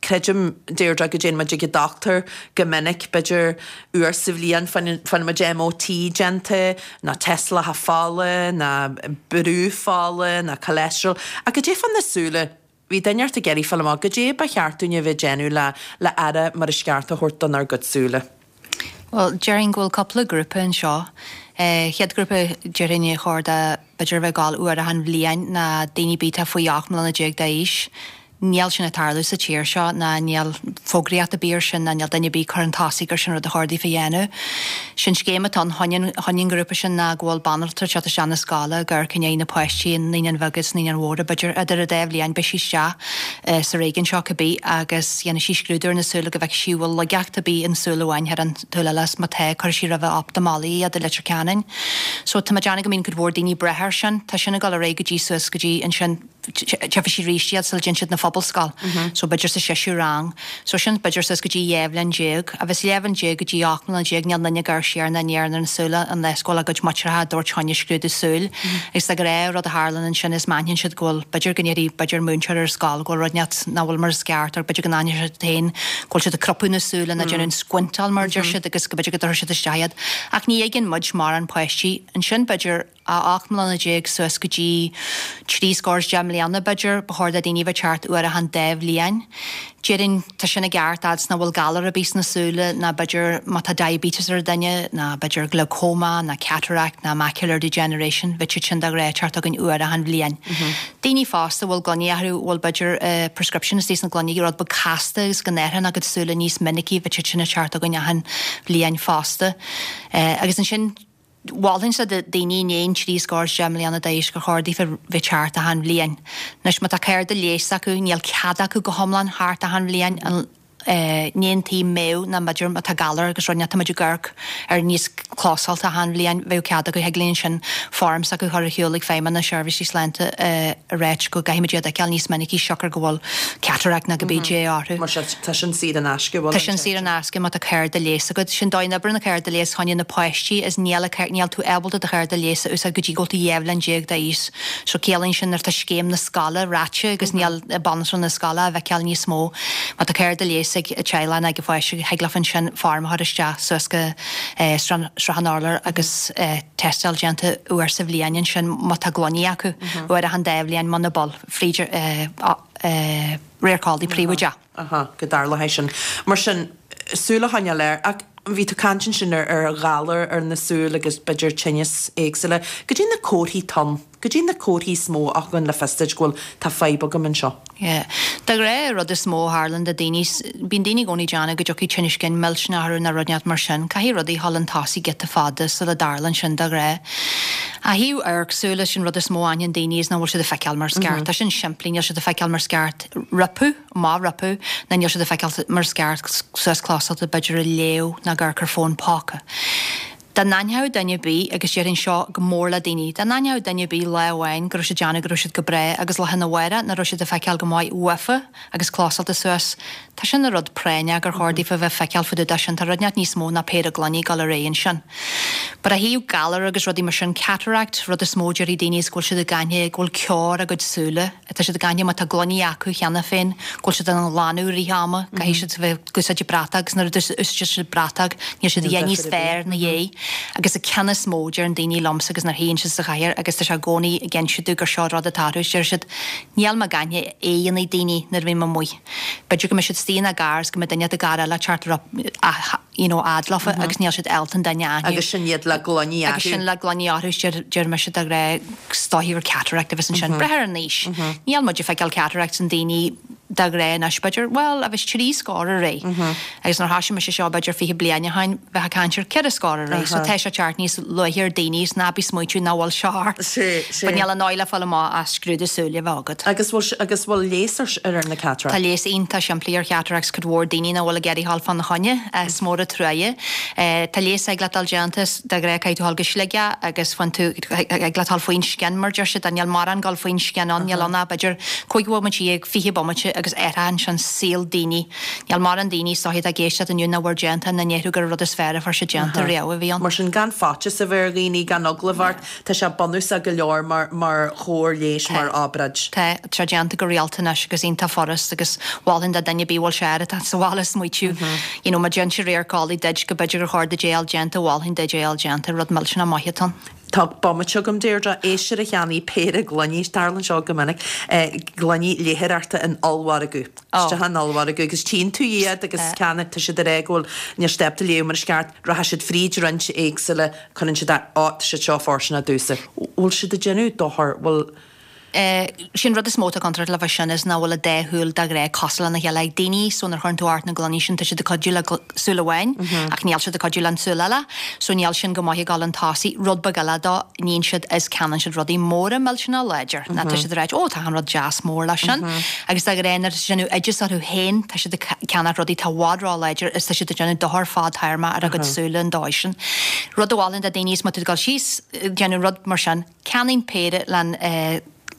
Creidim, Deirdre, go dtéann muid ag an dochtúir go minic, b'fhéidir uair sa bhliain, faigheann muid MOT déanta, nó tástálacha fola, nó brú fola, nó cholesterol. Ach goidé fá na súile? Bhí duine ort ag iarraidh fáil amach goidé ba cheart dúinn a bheith ag déanamh le le aire mar is ceart a thabhairt donár gcuid súile. Bhuel, déarfainn go bhfuil cúpla grúpa anseo. Chéad ghrúpa, déarfainn ar chóir do b'fhéidir a bheith ag gabháil uair achan bhliain ná daoine ar bith atá faoi 18 mbliana d'aois. Níl sin ag tarlú sa tír seo ná níl fógraíocht ar bith ar sin ná níl duine ar bith ag cur chun tosaigh gur sin rud a chóir daofa a dhéanamh. Sin scéim atá ann choinne choinne an ghrúpa sin ná go bhfuil banaltra ag teacht isteach na scoile ag amharc i ndiaidh na páistí i Naíonáin Bheaga is Naíonáin Mhóra b'fhéidir idir an dá bhliain beidh sí isteach sa réigiún seo cibé agus dhéanfaidh sí scrúdú ar na súile go bhfeicfidh sí an bhfuil laigeacht ar bith in súil amháin thar an tsúil eile is má tá cuirfidh sí roimhe optamalaí iad i Leitir Ceanainn. So tá mé ag déanamh go mbíonn cuid mhór daoine breithe air sin. Tá sin ag dul ar aghaidh go dtí suas go dtí ansin tchífidh sí arís iad sula dtéann siad 'na phobalscoil. So b'fhéidir sa seisiú rang. So sin b'fhéidir suas go dtí 12 bhliain. Agus 12 bhliain go dtí 18 mbliana níl aon duine ag amharc siar ná aniar ar na súile unless go bhfuil a gcuid muintreacha ag tabhairt choinne scrúdú súil. Agus de ghnáth rud a tharlann ansin is má aithníonn siad go bhfuil b'fhéidir go ndéarfaidh b'fhéidir múinteoir ar an scoil go bhfuil rud inteacht nach bhfuil mar is ceart or b'fhéidir go n-aithneoidh siad féin go bhfuil siad ag crupadh na súile nó déanamh an squintáil mar a deir siad agus go b'fhéidir go dtabharfaidh siad isteach iad. Ach ní fhaigheann muid mórán páistí ansin b'fhéidir a 18 mbliana suas go dtí trí scór is 10 mbliana, b'fhéidir, ba chóir do daoine a bheith ag teacht uair achan dá bhliain. Déarfainn, tá sin i gceart fhad 's nach bhfuil galar ar bith sna súile ná b'fhéidir má tá diabetes ar duine ná b'fhéidir glaucoma ná cataract ná macular degeneration, bheadh siad sin de ghnáth ag teacht chugainn uair achan bhliain. Daoine fásta a bhfuil gloiní orthu, a bhfuil b'fhéidir prescription istigh sna gloiní, rud beag casta agus go n-athraíonn a gcuid súile níos minicí, bheadh siad sin ag teacht chugainn achan bhliain fosta. Agus ansin, Mholfainnse do daoine i ndiaidh an trí scór is 10 mbliana d'aois gur chóir daofa bheith ag teacht achan bhliain. Anois má tá cárta leighis acu níl cead acu go hiomlán theacht achan bhliain. Ní an taobh méadh ná b'fhéidir má tá galar agus rud inteacht tá muid ag amharc ar níos closálta achan bhliain bheadh cead acu thig linn ansin form s'acu a chur ar shiúl ag Feidhmeannas Seirbhísí Sláinte a ráit go gcaithfidh muid iad a fheiceáil níos minicí siocair go bhfuil cataract nó cibé dé orthu. Mar sin tá sin saor in aisce, bhfuil Tá sin saor in aisce má tá cárta leighis agat. Sin dóigh a n-oibreann an cárta leighis choinne na páistí is níl níl tú ábalta do chárta leighis a úsáid go dtí go bhfuil tú 12 bhliain d'aois. So ciallaíonn sin nuair atá scéim na scoile ráite agus níl banaltra na scoile á bhfeiceáil níos mó. Má tá cárta leighis ag teaghlach nó ag an pháiste thig leofa ansin form a chur isteach suas go Srath an Urláir agus tástáil déanta uair sa bhliain ansin má tá gloiní acu, uair achan dá bhliain muna bhfuil, fríd radharc eolaí príobháideach. Aha, go dtarlódh é sin. Mar sin, súil a choinneáil air. Ach bhí tú ag caint ansin ar ar ghalar ar na súil agus b'fhéidir tinneas éagsúla. Goidé na comharthaí atá ann, goidé na comharthaí is mó a thugann le fios duit go bhfuil, tá fadhb agam anseo. Yeah. De ghnáth, an rud is mó a tharlann do daoine, bíonn daoine i gcónaí ag déanamh go dtiocfaidh tinneas cinn millteanach orthu nó rud inteacht mar sin. Caithfidh rudaí a dhul chun tosaigh giota fada sula dtarlann sin de ghnáth. Ó thaobh amharc súile, sin rud is mó a aithníonn daoine is nach bhfuil siad ag feiceáil mar is ceart. Tá sin simplí, níl siad ag feiceáil mar is ceart. Roipeadh. Má roipeadh, ná níl siad ag feiceáil mar is ceart suas closálta b'fhéidir ag léamh ná ag amharc ar fón póca. Dá n-aithneodh duine ar bith, agus déarfainn seo go mór le daoine, dá n-aithneodh duine ar bith lá amháin go raibh siad déanamh go raibh siad go breá agus lá arna mhárach nach raibh siad ag feiceáil go maith uafa agus closálta suas, tá sin ina rud práinneach gur chóir daofa bheith feiceáil fá dtaobh de sin, tá rud inteacht níos mó ná péire gloiní ag dul ar aghaidh ansin. But ó thaobh galar agus rudaí mar sin, cataract, rud is mó déarfaidh daoine is go bhfuil siad ag aithne go bhfuil ceo ar a gcuid súile. Tá siad ag aithne má tá gloiní acu cheana féin, go bhfuil siad á nglanadh i rith ama, caithfidh siad a bheith ag úsáid bratach agus nuair a úsáideann siad bratach níl siad a dhath níos fearr ina dhiaidh. Agus an ceann is mó, deireann daoine liomsa agus nuair a théann siad sa chathaoir agus tá sé i gcónaí ag inse domh gur seo rud atá orthu, deir siad, níl mé ag aithne aghaidheanna daoine nuair a bhím amuigh. B'fhéidir go mbeidh siad istigh ina gcarr is go mbeidh duine i gcarr eile ag teacht you know fhad leofa agus níl siad ábalta an duine a aithniú. Agus sin iad le gloiní orthu. Agus sin le gloiní orthu is deir, deir mise de ghnáth is dóichí gur cataract a bheas ansin. Breith ar an aois. Níl muid ag feiceáil cataracts in daoine de ghnáth anois b'fhéidir, bhuel, a bheas trí scór ar aghaidh. Agus nuair a thoisigh mise seo b'fhéidir 20 bliain ó shin, bheifeá ag caint ar cheithre scór ar aghaidh. So tá sé ag teacht níos luaithe ar daoine is ná bí ag smaoitiú nach bhfuil seo ort. But níl aon dóigh le fáil amach ach scrúdú súile a bheith agat. Agus bhfuil, agus bhfuil leigheas ar, ar na cataracts? Tá leigheas iontach simplí ar chataracts, cuid mhór daoine nach bhfuil ag iarraidh dhul fána choinne, is mór an truaighe. Tá leigheas thig leat dul déanta, de ghnáth caithfidh tú dhul go Sligeach agus faigheann tú, thig leat dhul faoin scian mar deir siad, níl mórán dul faoin scian ann, níl ann ach b'fhéidir 15 bhomaite, 20 bomaite agus athraíonn sin saol daoine. Níl mórán daoine is dóichí atá ag éisteacht inniu nach bhfuair déanta nach ndéarfadh gur an rud is fearr a fuair siad déanta riamh a bhí ann. Mar sin gan faitíos a bheith ar dhaoine, gan eagla a bheith ort, Tá sé bunúsach go leor mar mar chóir leighis, mar obráid. Tá, tá sé déanta go rialta anois agus iontach furast agus mholfainn do duine ar bith a bhfuil sé air atá sa bhaile smaoitiú you know má d'inis radharc eolaí duit go b'fhéidir gur chóir duit é a fháil déanta, mholfainn duit é a fháil déanta, rud millteanach maith atá ann. Tá bomaite agam, Deirdre. Éisteoir a cheannaigh péire gloiní, tarlaíonn seo go minic, gloiní léitheoireachta in ollmhargadh. Isteach in ollmhargadh agus tchíonn tú iad agus ceannaigh, tá siad ag rá go bhfuil, níl siad ábalta léamh mar is ceart, rachaidh siad fríd roinnt éagsúla, cuireann siad, á, tá siad seo fóirsteanach domhsa. Bhfuil siad ag déanamh dochar, bhfuil. Sin rud is mó atá contúirteach le sin is nach bhfuil an dá shúil de ghnáth cosúil lena chéile ag daoine so nuair a chuireann tú ort na gloiní sin tá siad ag cuidiú le súil amháin ach níl siad ag cuidiú le an tsúil eile so níl sin go maith ag dul chun tosaigh. Rud beag eile dó, níonn siad is ceannaíonn siad rudaí móra millteanach láidir ná tá siad ag ráit ó tá an rud deas mór leis sin agus de ghnáth nuair atá siad ag déanamh oideas orthu féin tá siad ag ceannach rudaí atá i bhfad ró-láidir is tá siad ag déanamh dochar fadtéarmach ar a gcuid súile an dóigh sin. Rud a mholfainn do daoine is má tá tú ag dul síos ag déanamh rud mar sin, Ceannaím péire len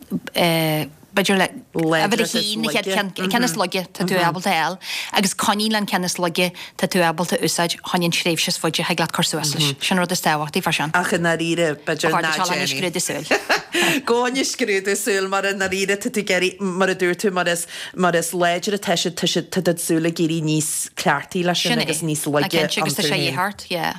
b'fhéidir le uimhir a haon, an chéad ceann, an ceann is laige tá tú ábalta a fháil agus coinnigh len ceann is laige tá tú ábalta a úsáid choinne an tréimhse is faide thig leat cur suas leis. Sin an rud is tábhachtaí fá sin. Ach i ndáiríre, b'fhéidir ná déan é. Scrúdú súl. Gabh fá choinne scrúdú súl mar i ndáiríre tá tú ag éirí, mar a dúirt tú, mar is, mar is láidre atá siad, tá siad, tá do shúile ag éirí níos cleachtaí leis sin agus níos laige iontu féin. Agus tá sé a dhíth ort, yeah.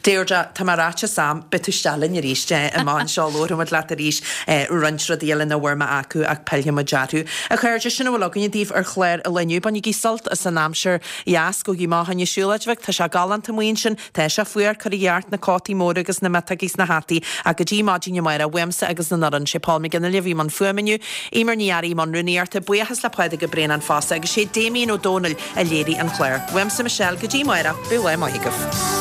Deirdre, tá mé ráite Sam, beidh tú isteach linn arís amach anseo, labharfaidh muid leat arís roinnt rudaí eile nach bhfuair mé acu ach pillfidh muid orthu. A chairde, sin a bhfuil againne daoibh ar chlár an lae inniu. Bainigí sult as an aimsir dheas, gabhaigí amach fá choinne siúlóid bheag, tá sé galánta amuigh ansin, tá sé fuar, cuirigí ort na cótaí móra agus na miotógaí is na hataí ach go dtí maidin amárach, uaimse agus an fhoireann, sé Paul McGinley a bhí i mbun fuaime inniu, Eimear Ní Fhearraigh i mbun rúnaíochta, buíochas le Pádraig Ó Braonáin fosta agus sé Damien Ó Dónaill a léirigh an clár. Uaimse Michelle, go dtí amárach, bíodh lá maith agaibh.